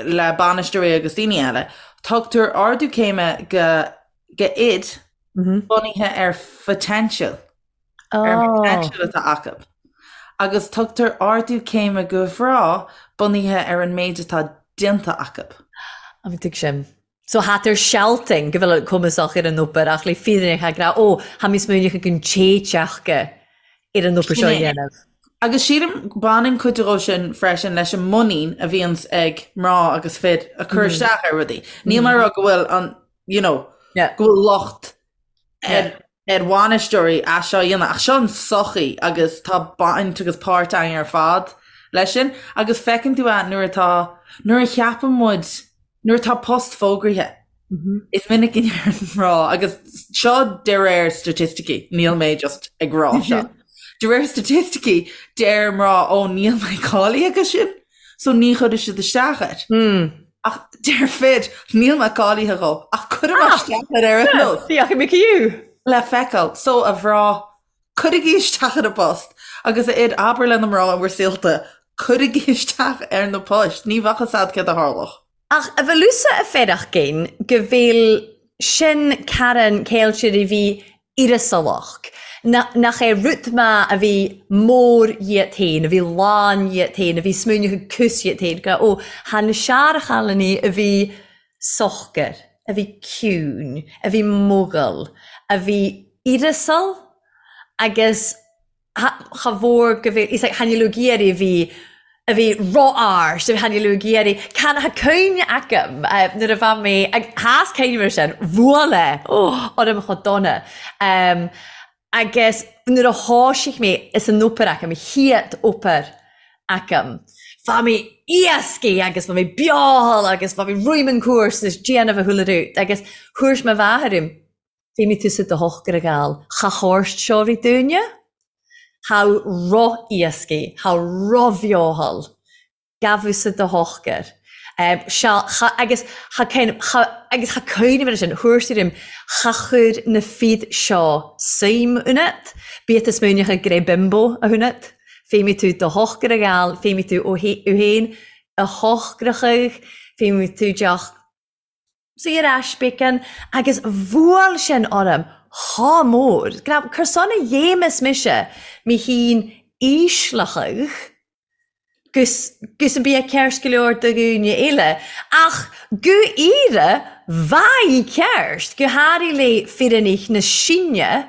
S2: le bainisteoirí agus daoine eile, tugtar ardú céime go go fhir bunaithe ar photential. Ar an bpotential atá acu. Agus tugtar ardú céime go mhná bunaithe ar an méid atá déanta acu.
S3: An dtuig sin. So tha tar sealtainn go bhfuil cumasach ar an obair ach le fírinne tha ag rá ó tha mi smaoineachadh gun téiteachga ar an obair seo a dhéanamh.
S2: Agus sílim baineann cuid dhó sin freisin leis an muinín a bhíonns ag mná agus fir a cur isteach ar rudaí. Níl mé ag rá go bhfuil an, you know, go bhfuil locht ar ar bhainisteoirí as seo a dhéanamh ach seo an sochaí agus tá baint agus páirt againn ar fad leis sin agus feiceann tú é nuair atá nuair a cheapann muid nuair atá post fógraithe is minic go ndeireann mná agus seo de réir staitisticí níl mé just ag rá seo de réir staitisticí deir mná ó níl mé cáilithe go sin so ní chuirfidh siad isteach air. Ach deir fir, níl mé cáilithe dhó, ach cuirfidh mé isteach air ar aon nós.
S3: Féachfaidh mé fiú.
S2: Le feiceáil. So, a mhná, cuirigí isteach ar an bpost agus a fhir, abair le na mná in bhur saolta, cuirigí isteach ar na poist, ní bheadh fhios a'd céard a tharlódh.
S3: Ach a bheil thusa a fearachgain go bhfuil sin Karen Ceiltir a bhí uireasalach, nach é rud maith a bhí mór dhíot féin, a bhí lán dhíot féin, a bhí smaoineachadh cús dhíot féin, go, ó, tha na searchailíní a bhí socair, a bhí ciúin, a bhí mogall, a bhí uireasal agus cha mhór go bhféadfaí, like, tha níl ag iarraidh a bhí, a bhí ró-árst, tha níl ag iarraidh, can tha cuimhne agam nuair a bha mé, ag, tha 's cuimhne mar sin, bhuail é, oh, orm chomh dona. Agus nuair a thoisigh mé is an obair agam, chéad obair agam, bha mé éascaidh agus bha mé beothal agus bha mé roim an cúrsa is déanamh a chuile rud agus thuairs mo mháthair orm, Feidhmigh tusa do shochar a ghabháil cha thabhairt seo rí dúinne, tha ro-éascaidh, tha ro-bheothal, gabh-sa do shochar. Sea, cha, agus cha cén, cha, agus cha cuimhním ar sin, thabhairt uirm, cha chuir na fir seo suim ionat, bíodh tú smaoineachadh gur é bimbo a hionat, feidhmigh tú do shochar a ghabháil, feidhmigh tú ó fhéin a shocrachadh, feidhmigh tú deoch saor ais bacon agus bhuail sin orm chomh mór. Cur son a dhéamas mise mé féin ísleachadh gus gus an bia ceart go leor do dhaoine eile ach go aoire bha í ceart go háirithe le firinneach na Síne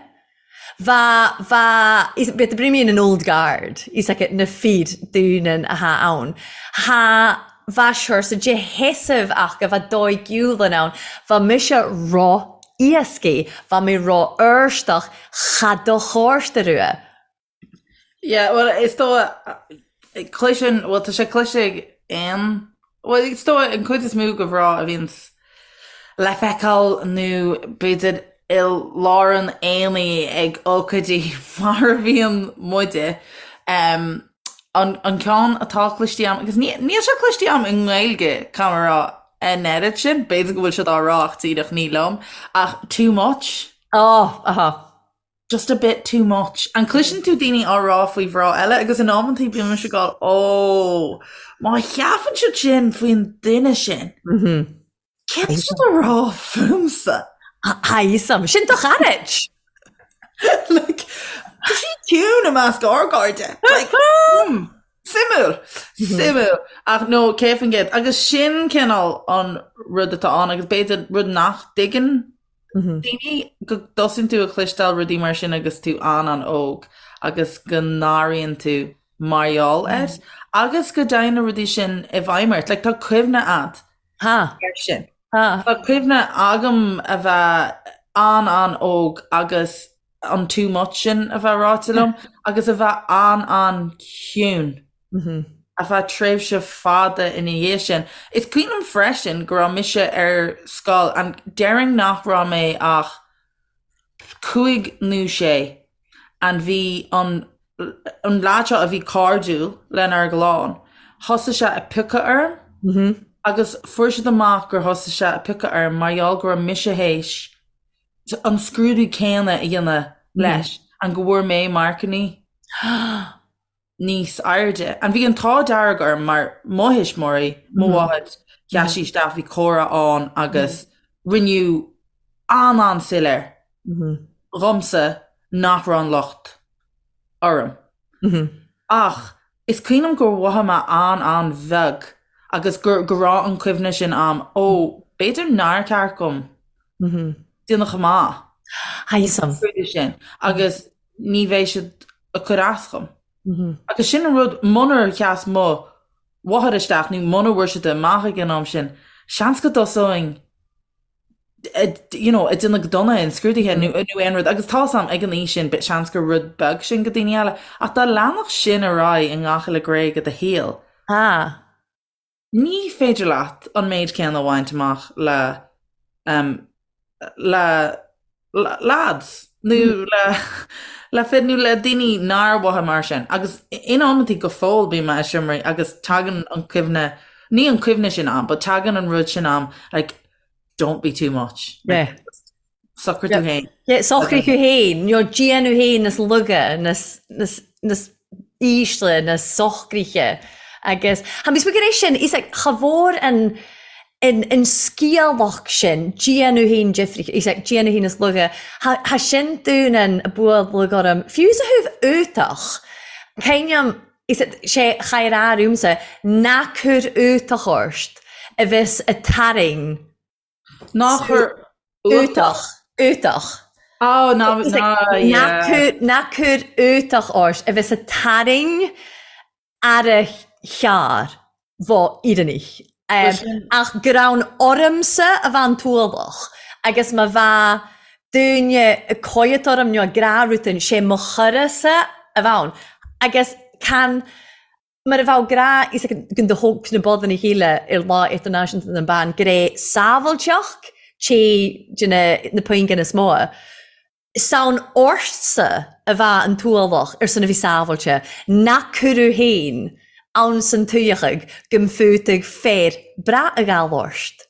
S3: Bha, bha, is, bit brimíonn an old guard, is aici na fir dúnan a tha ann. Tha, bha siorsa de sheasamh aca, bha dóighiúil ann, bha mise ro-éascaidh, bha mé ro-fhurstach, cha do chárta rua.
S2: Yeah, bhuel, is dóigh, cloiseann, bhuel, tá sé cloiste ag aon, bhuel, is dóigh an chuid is mó de mhná a bhíonns le feiceáil nó b'fhéidir i lár an aonaigh ag ócáidí mar a bhíonn muide, um, an, an ceann atá cloiste agam, agus ní, níl sé cloiste agam i nGaeilge, caithfidh mé a rá, an oiread sin, b'fhéidir go bhfuil siad á rá ach díreach ní liom, ach too much.
S3: Oh, aha.
S2: Just a bit too much. An cloiseann tú daoine á rá faoi mhná eile agus in amantaí bíonn mise ag gabháil ó, má cheapann siad sin faoin duine sin, céard tá siad a rá fúmsa?
S3: Tha fhios a'm. Sin do charaid!
S2: Like, tá sí ciúin i measc ár gcairde. Like, hmm, suimiúil, suimiúil. Ach no, 100%. Agus sin cineál an rud atá ann agus b'fhéidir rud nach dtuigeann Daoine go dtosaíonn tú a chloisteáil rudaí mar sin agus tú an-an-óg agus go n-airíonn tú mar gheall air agus go dtéann na rudaí sin i bhfeidhm ort. Like, tá cuimhne a'd
S3: ar
S2: sin. Tá cuimhne agam a bheith an-an-óg agus an too much sin a bheith ráite liom agus a bheith an-an-chiúin. Ar feadh tréimhse fada ina dhiaidh sin. Is cuimhin liom freisin go raibh mise ar scoil and déarfainn nach raibh mé ach cúig nó sé. And bhí an an leaid seo a bhí cairdiúil lenár gclann, thosaigh sé ag piocadh orm agus fuair siad amach gur thosaigh sé ag piocadh orm mar gheall go raibh mise théis an scrúdú céanna a dhéanamh leis and go bhfuair mé marcannaí níos airde. And bhí an t-ádh dearg orm mar mo thuismitheoirí, mo mháthair, sheas sí isteach, bhí comhrá ann agus rinneadh an-an-soiléir dhomsa nach raibh an locht orm. Ach is cuimhin liom gur mhothaigh mé an-an-bheag agus gur go raibh an cuimhne sin a'm, ó, b'fhéidir nár cheart dhom déanamh chomh maith
S3: Tha fhios a'm.
S2: sin agus ní bheidh siad ag cur as dhom. Agus sin an rud, munar sheas mo mháthair isteach nó muna bhfuair siad amach ag an am sin, seans go dtosóinn you know, ag déanamh go dona in scrúduithe nó nó aon rud agus tá 'fhios a'm ag an aois sin but seans gur rud beag sin go daoine eile ach dá leanfadh sin ar aghaidh i ngach uile ghné de do shaol,
S3: Ah.
S2: ní féidir leat an méid céanna a bhaint amach le um, le lads nó le le fir nó le daoine nár mhothaigh mar sin. Agus in amantaí go fóill bím i seomraí agus tagann an cuimhne, ní an cuimhne sin a'm, but tagann an rud sin a'm like don't be too much.
S3: Yeah.
S2: Socraigh tú féin.
S3: Yeah, socraigh thú féin, nó déan thú féin níos laige, níos, níos, níos ísle, níos socraithe. Agus, tha mi smuig air sin, is like, cha mhór an, an, an sciathlach sin, déan thú féin difrich, is like, déan thú féin níos laige, tha, tha sin dún an bualadh orm, fiú sa thaobh uatach, cuimhním, is like, sé chaith ar ormsa, ná cuir uatach ort, a bheas a tarraing
S2: Ná cuir
S3: uatach. Uatach.
S2: Oh, ná, ná, yeah.
S3: Ná cuir uatach ort a bheas a tarraing ar a chearr bho Éireannaigh. Ach gur ann ormsa a bheadh an t-ualach agus má bheadh duine ag coimhead orm nó ag rá rud inteacht, sé mo chara-sa a bheadh ann. Agus can Mar a bheadh grá is ag do thóg na bodanna chéile ar Lá Idirnáisiúnta na mBan gré sábháilteacht té de na puingin is mó. 'S ann ortsa a bheadh an t-ualach ar son a bhí sábháilte, nach cuireadh féin ann san tuigheadh go mb'fhiútaigh féar breá a ghabháil ort.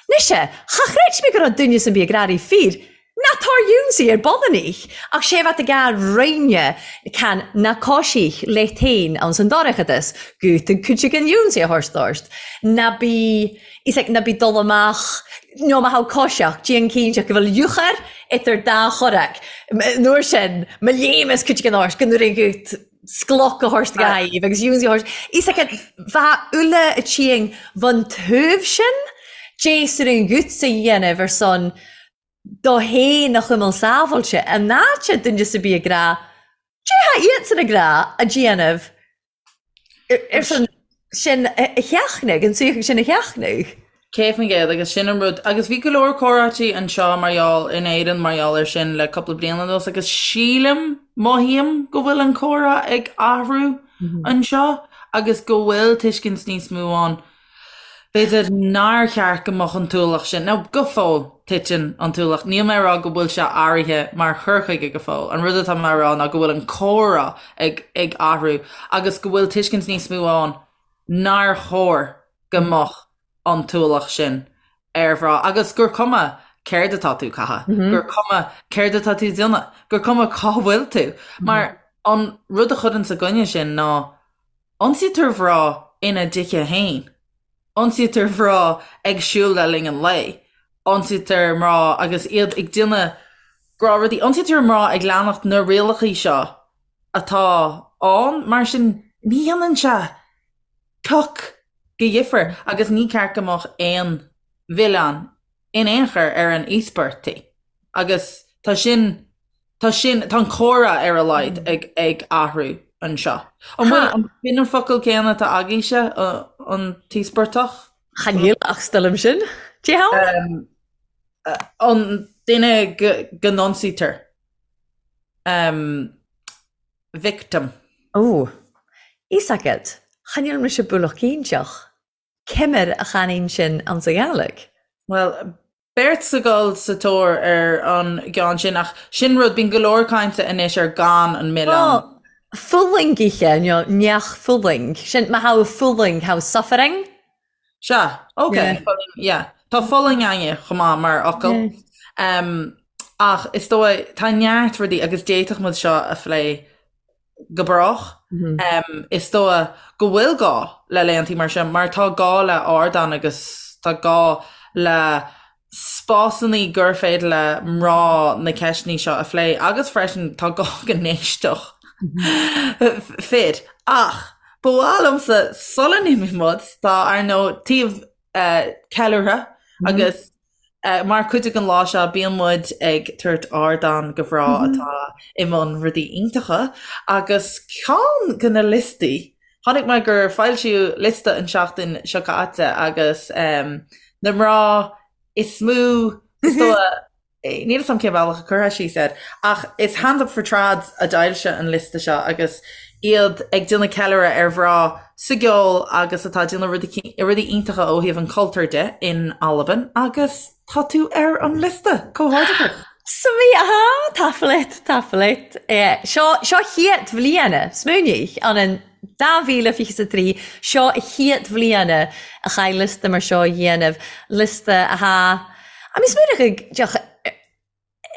S3: Mise, cha chreid mé go raibh duine san bith ag rá fíor, ná tar ionsaí ar Bodanich, ach sé bheat ag a roinne can ná coisích leat féin ann san dorchadas, gútaigh cuid den ionsaí a thabhairt ort, ná bí, is ag ná bí dul amach, nó má thá coiseach, déan cinnte go bhfuil eochair idir dá chorrac, an uair sin, mo léimeas cuid den ort go nuair an gút. scloc a thabhairt dhaoibh agus ionsaí a thabhairt. Is ag bheith uile a tSiang bhun taobh sin, d'éasar an ghuts a dhéanamh ar son do fhéin a chuimil sábháilte, an áit a duine sa bith ag rá, Dé há iadsan ag rá a déanamh ar son sin a sheachnadh, an suíochán sin a sheachnadh.
S2: 100% agus sin an rud agus bhí go leor comhráití anseo mar gheall in Éirinn mar gheall air sin le cúpla bliain anuas agus sílim, mothaím go bhfuil an comhrá ag athrú anseo agus go bhfuil tuiscint níos mó ann b'fhéidir nár cheart go mbeadh an t-ualach sin, now go fóill titeann an t-ualach, níl mé ag rá go bhfuil sé athraithe mar chur chuige go fóill, an rud atá mé a rá ná go bhfuil an comhrá ag ag athrú agus go bhfuil tuiscint níos mó ann nár chóir go mbeadh an t-ualach sin ar mhná agus gur cuma céard atá tú ag caitheamh, gur cuma céard atá tú ag déanamh, gur cuma cá bhfuil tú. Mar an rud a chuireann sa gcoinne sin ná ionsaítear mná ina dtithe féin, ionsaítear mná ag siúl le linn an lae, ionsaítear mná agus iad ag déanamh gnáthrudaí, ionsaítear mná ag leanacht na rialacha seo atá ann, mar sin ní dhéanann sé pioc de dhifear agus ní ceart go mbeadh aon mhilleán in aon chor ar an íospartaí agus tá sin, tá sin, tá an comhrá ar a laghad ag, ag athrú anseo. An bhfuil, an b'in an focal céanna atá agaibhse, an t-íospartach?
S3: Chan eil ach 's toil leam sin. Dé
S2: hann? An duine go, go n-ionsaítear. Victim.
S3: Ó, fhios agat, chan eil mise bualach cinnteach. Ciamar a channainn sin anns a' Ghàidhlig?
S2: Bhuel, Beirt ag dul sa tóir ar an gceann sin ach sin rud, bíonn go leor cainte anois ar gan an milleán.
S3: Fulaingithe nó neach fulaing. Sin má tha fulaing, tha suffering.
S2: Sea, ok, yeah. Tá fulaing againne chomh maith mar fhocal. Ach is dóigh, tá neart rudaí agus d'fhéadfadh muid seo a phlé go brách. Is dóigh go bhfuil gá le laethantaí mar seo mar tá gá le ardán agus tá gá le spásanna gur féidir le mná na ceisteanna seo a phlé agus freisin tá gá go n-éisteodh fir. Ach ba mhaith liomsa sula n-imíonn muid, tá ar ndóigh taobh ceiliúrtha agus Mar chuid den lá seo bíonn muid ag tabhairt ardán do mhná atá i mbun rudaí iontacha agus ceann de na liostaí, chonaic mé gur foilsíodh liosta an tseachtain seo caite agus na mná is mó, is dóigh, níl 'fhios a'm cén bealach a chuirfeá síos air, ach is Hands Up For Trad a d'fhoilsigh an liosta seo agus iad ag déanamh ceiliúradh ar mhná sa gceol agus atá ag déanamh rudaí iontacha ó thaobh an chultúir de in Albain agus tá tú ar an liosta! Comhghairdeachas!
S3: Smi, aha, tapadh tapadh Seo seo chiad bhliana, smaoinigh, an an 2023, seo a chiad bhliana a chaith liosta mar seo a dhéanamh, liosta atá, I mean smaoinigh, deoch,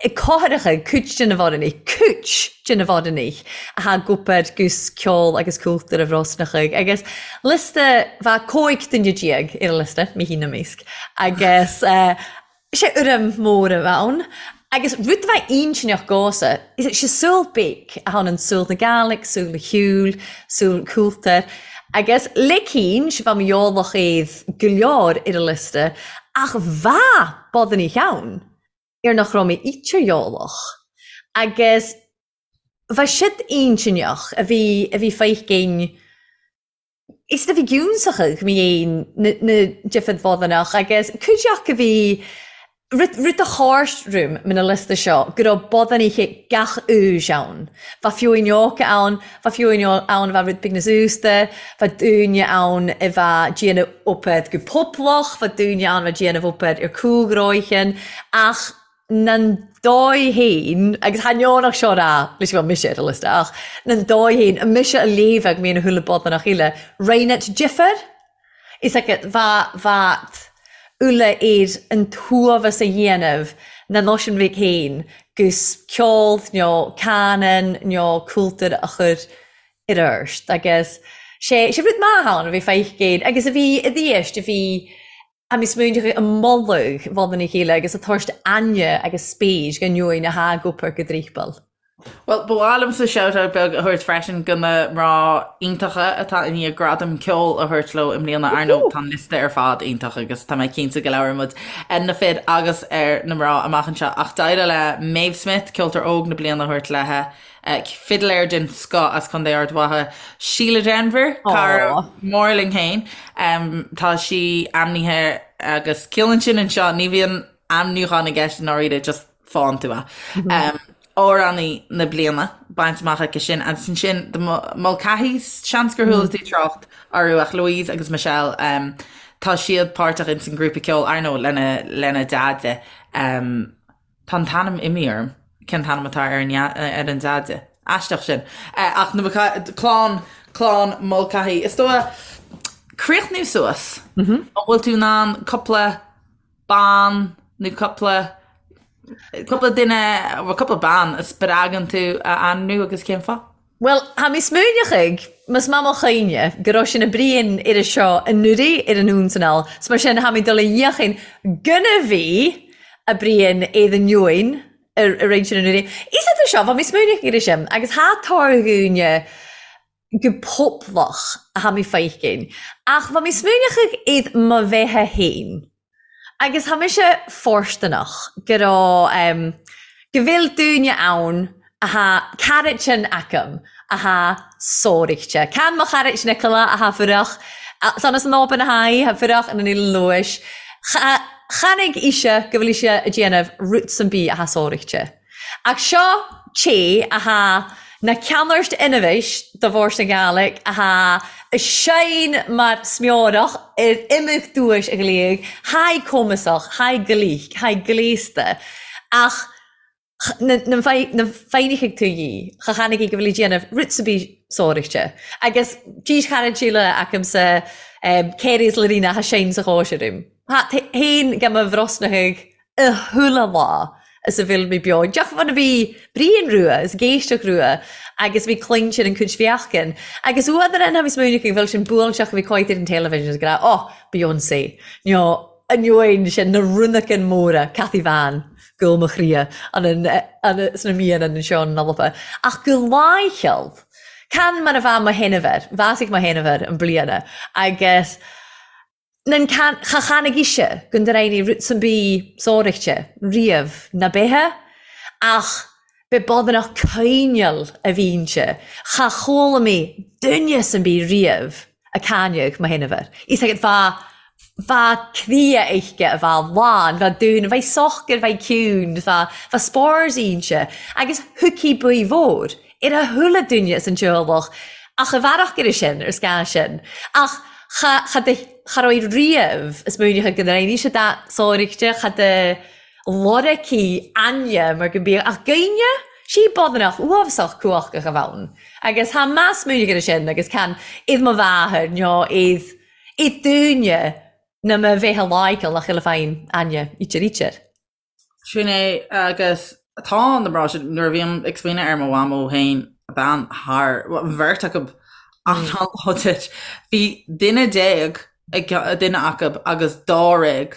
S3: Cóthaireacha, cuid de na bhorannaich, cuid de na bhorannaich athá ag obair gus ceol agus cultúr a Bhrosnachaigh agus liosta bha 15 duine ar an liosta, mé féin 'na measc, agus sé urraim mór a bha ann. Agus rud a bha intinneach dhomhsa, sé saol beag a tha ann, saol na Gàidhlig, saol an cheoil, saol an chultúir, agus le cinnt bha mo eolach iad go leor ar an liosta ach bha bodannaich ann. ar nach raibh mé ítear-eolach agus bha siad intinneach a bhí a bhí feicinn is a bhí giúnsachadh mé fhéin na na difead bhodannach agus cuid acu a bhí rud rud a thabhairt roim na liosta seo go raibh bodannaithe gach aois ann. Bha fiúin óga ann, bha fiúin ann a bha rud beag níos aosta, bha daoine ann a bha déanamh obair go poblach, bha daoine ann a bha déanamh obair ar cúlghróichin, ach nan dóigh fhéin, agus tha neònach seo rà leis go bhfuil mise ar an liosta, ach nan dóigh fhéin, mise a léamhadh mé na húlla bodanach eile, roinnt difear. Is ea, bha, bhat uile ar an t-uaimheas a dhéanamh na náisiún bhig fhéin gus ceol nó canann nó cultúr a chur ar ort agus sé, sé rud maith ann a bhí feicéin agus a bhí i dthiast a bhí a bhí smaointeach i moladh bhun a chéile agus a tabhairt aithne agus spéis go ndeoin a thá ag obair go dtrípal.
S2: Bhuel, ba mhaith liomsa shout-out beag a thabhairt freisin do na mná iontacha atá i ndiaidh gradam ceoil a thabhairt leo i mbliana. Ar ndóigh, tá an liosta ar fad iontach agus tá mé cinnte go labhróidh muid ar na fir agus ar na mná amach anseo. Ach d'éirigh le Maeve Smith, Ceoltóir Óg na Bliana a thabhairt léi, fidléir den scoth as Contae Ard Mhacha, Síle Denvir, cara mór linn féin. Tá sí ainmnithe agus ciallaíonn sin anseo, ní bhíonn ainmniúchán i gceist i ndáiríre, just faigheann tú é. Amhránaí na bliana bainte amach aici sin agus ansin The Mulcahys, seans gur chuala tú trácht orthu ach Louise agus Michelle, tá siad páirteach ins an grúpa ceoil, ar ndóigh, lena lena deaide. Tá an t-ainm imithe orm, cén t-ainm atá ar an ar an deaide? Aisteach sin. Ach na clann clann Mulcahy. Is dóigh críochnú suas. An bhfuil tú in ann cúpla bean nó cúpla cúpla duine nó cúpla bean a spreagann tú a ainmniú agus cén fáth?
S3: Bhuel, tha mi smaoineachadh, mas math mo chuimhne, gur raibh sin a bruidhinn air a seo anuraidh ar an Ionsanal, 's mar sin tha mi dol a fhiachain gonn a bhí a bruidhinn air an Eoin ar roinn sin anuraidh. Is idir seo, bha mi smaoineachadh air sin, agus tha tòr-dhuine gu poblach a tha mi feicinn, ach bha mi smaoineachadh iad mo bheatha fhéin. Agus tha mise fóirsteanach go raibh, go bhfuil daoine ann a tha caraitin agam a tha sóirichte. Can mo chairit Nicola a tha fuireach, san as an Oban a tha í, tha fuireach ina Eilean Lùis. Chanaig ise go bhfuil ise a' déanamh rud san bith a tha sóirichte. Ach seo té a tha. Na ceannairt inmheis do Bhord na Gàidhlig athá seinn mar smeorach ar imeacht duais a ghliadh, thaidh cumasach, thaidh glic, thaidh gléasta, ach na foighneachaidh tú dhi, cha chanaigh í go bhfuil í déanamh rud sa bith sóireachta. Agus dís charad Síle acamsa Kerry is Lorena athá seinn sa chóisir uaim. Tha fhéin go mo bhrosnachaidh a chuile lá is a bhfuil mé beo. Deoch bhun a bhí Brian Rua is géisteach Rua agus bhí cluinsean an cuid bheachcan. Agus uadar an bhí smaoineach go bhfuil sin buailteach a bhí coit ar an television is go raibh, oh, Beyonce, nó ainneoin sin na runacan móra, Cathy Van, gúl mo chroidhe, an an sna míonna anseo in Alba. Ach go láicheall, can mar a bheadh mo shéanamhar, bhásaigh mo shéanamhar an bliana agus Nan cha chanaigh ise go ndreighnigh rud san bí sóireachta riamh ná beithe ach be bodanach coinneal a bhínnse cha chuala mé duine san bí riamh a cáineadh mo shéanamhar. Is agat bha bha cria uisce a bha lán bha dún bha socair bha ciúin bha bha spárs ínse agus thuigfí buí mhór ar a chuile duine as an teaghlach ach i bhfearach ar sin, ar scáth sin. Ach cha, cha de, cha raibh riamh is múineadh go ndréimí sé da sóirichte, cha de loraicí aine mar go mbíodh ach gaoine, sí bodanach uafásach cumhachtach a bheann. Agus tha meas múineadh ar sin agus can iad mo mháthair nó iad, iad dúine na mo bheith a láigeal nach uile féin aine ítear ítear.
S2: Sin é, agus tá na mná sin, nuair a bhím ag smaoineamh ar mo mhamó féin, bean thar, bhuel, an bheirt acu an-láidir. Bhí duine déag ag duine acu agus dáréag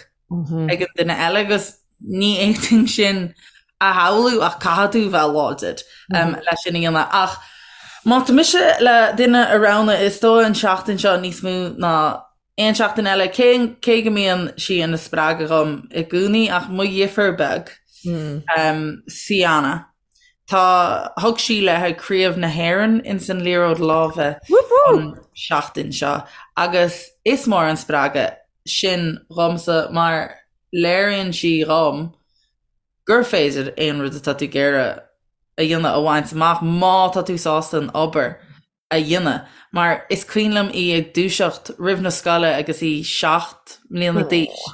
S2: ag an duine eile agus ní fhéadfainn sin a shamhlú ach caithfidh tú bheith láidir leis sin a dhéanamh. Ach má tá mise le duine a roghnú, is dóigh an seachtain seo níos mó ná Aon seachtain eile, cé cé go mbíonn sí ina spreagadh dhom i gcónaí ach mo dheirfiúr beag, Siana, tá, thug sí léi Craobh na hÉireann ins an liathróid láimhe an seachtain seo agus is mór an spreagadh sin dhomsa mar léiríonn sí dhom gur féidir aon rud atá tú ag iarraidh a dhéanamh a bhaint amach má tá tú sásta an obair a dhéanamh, mar is cuimhin liom í ag dúiseacht roimh na scoile agus í 7 mbliana d'aois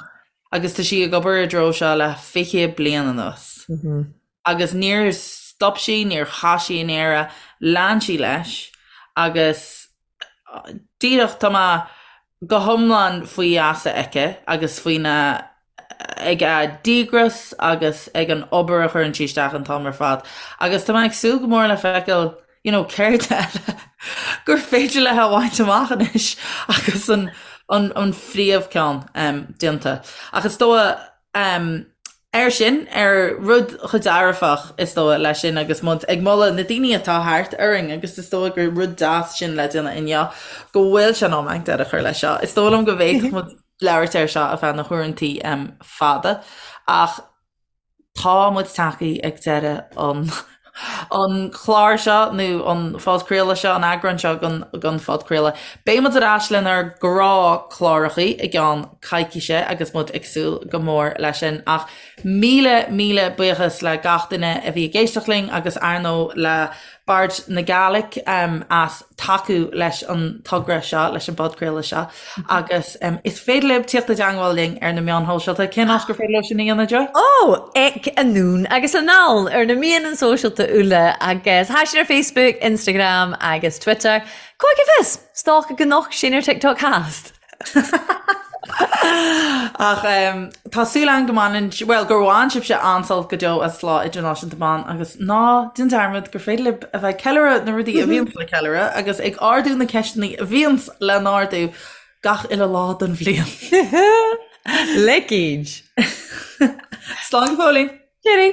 S2: agus tá sí ag obair i dtreo seo le 20 bliain anuas. Agus níor stop sí, níor chaith sí an iarraidh, lean sí leis agus díreach tá mé go hiomlán faoi gheasa aici agus faoina ag a díograis agus ag an obair a chuireann sí isteach an t-am ar fad. Agus tá mé ag súil go mór le feiceáil you know céard eile gur féidir léi a bhaint amach anois agus an an an phríomhcheann um, déanta. Ach is dóigh um, Air sin, ar rud chomh dearfach, is dóigh, leis sin agus muid ag moladh na daoine atá thart orainn agus is dóigh gur rud deas sin le déanamh inniu, go bhfuil sé in am againn deireadh a chur leis seo. Is dóigh liom go bhféadfadh muid labhairt air seo ar feadh na huaireantaí fada ach tá muid tagtha ag deireadh an an chlár seo nó an phodchraoladh seo, an eagrán seo den den phodchraoladh. Beidh muid ar ais lenár ngnáthchlárachaí i gceann coicíse agus muid ag súil go mór leis sin. Ach míle míle buíochas le gach duine a bhí ag éisteacht linn agus ar ndóigh le Bard na Gàidhlig as tacú leis an togra seo, leis an bpodchraoladh seo agus is féidir libh tíocht i dteangmháil linn ar na meáin shóisialta. Cén áit gur féidir leo sin a dhéanamh, Jo?
S3: Ó, ag Anonn agus Anall ar na meáin sóisialta uile agus tha sinn ar Facebook, Instagram agus Twitter. Cá bhfios, 's dòcha gun noch sinn ar TikTok thast.
S2: Ach tá súil againn go mbaineann, bhuel, gur bhain sibhse an-sult go deo as Lá Idirnáisiúnta Ban agus ná déan dearmad gur féidir libh a bheith ag ceiliúradh na rudaí a bhíonns le ceiliúradh agus ag ardú na ceisteanna a bhíonns le n-ardú gach uile lá den bhliain.
S3: Leicid!
S2: Slán go fóillín!
S3: Cheerio!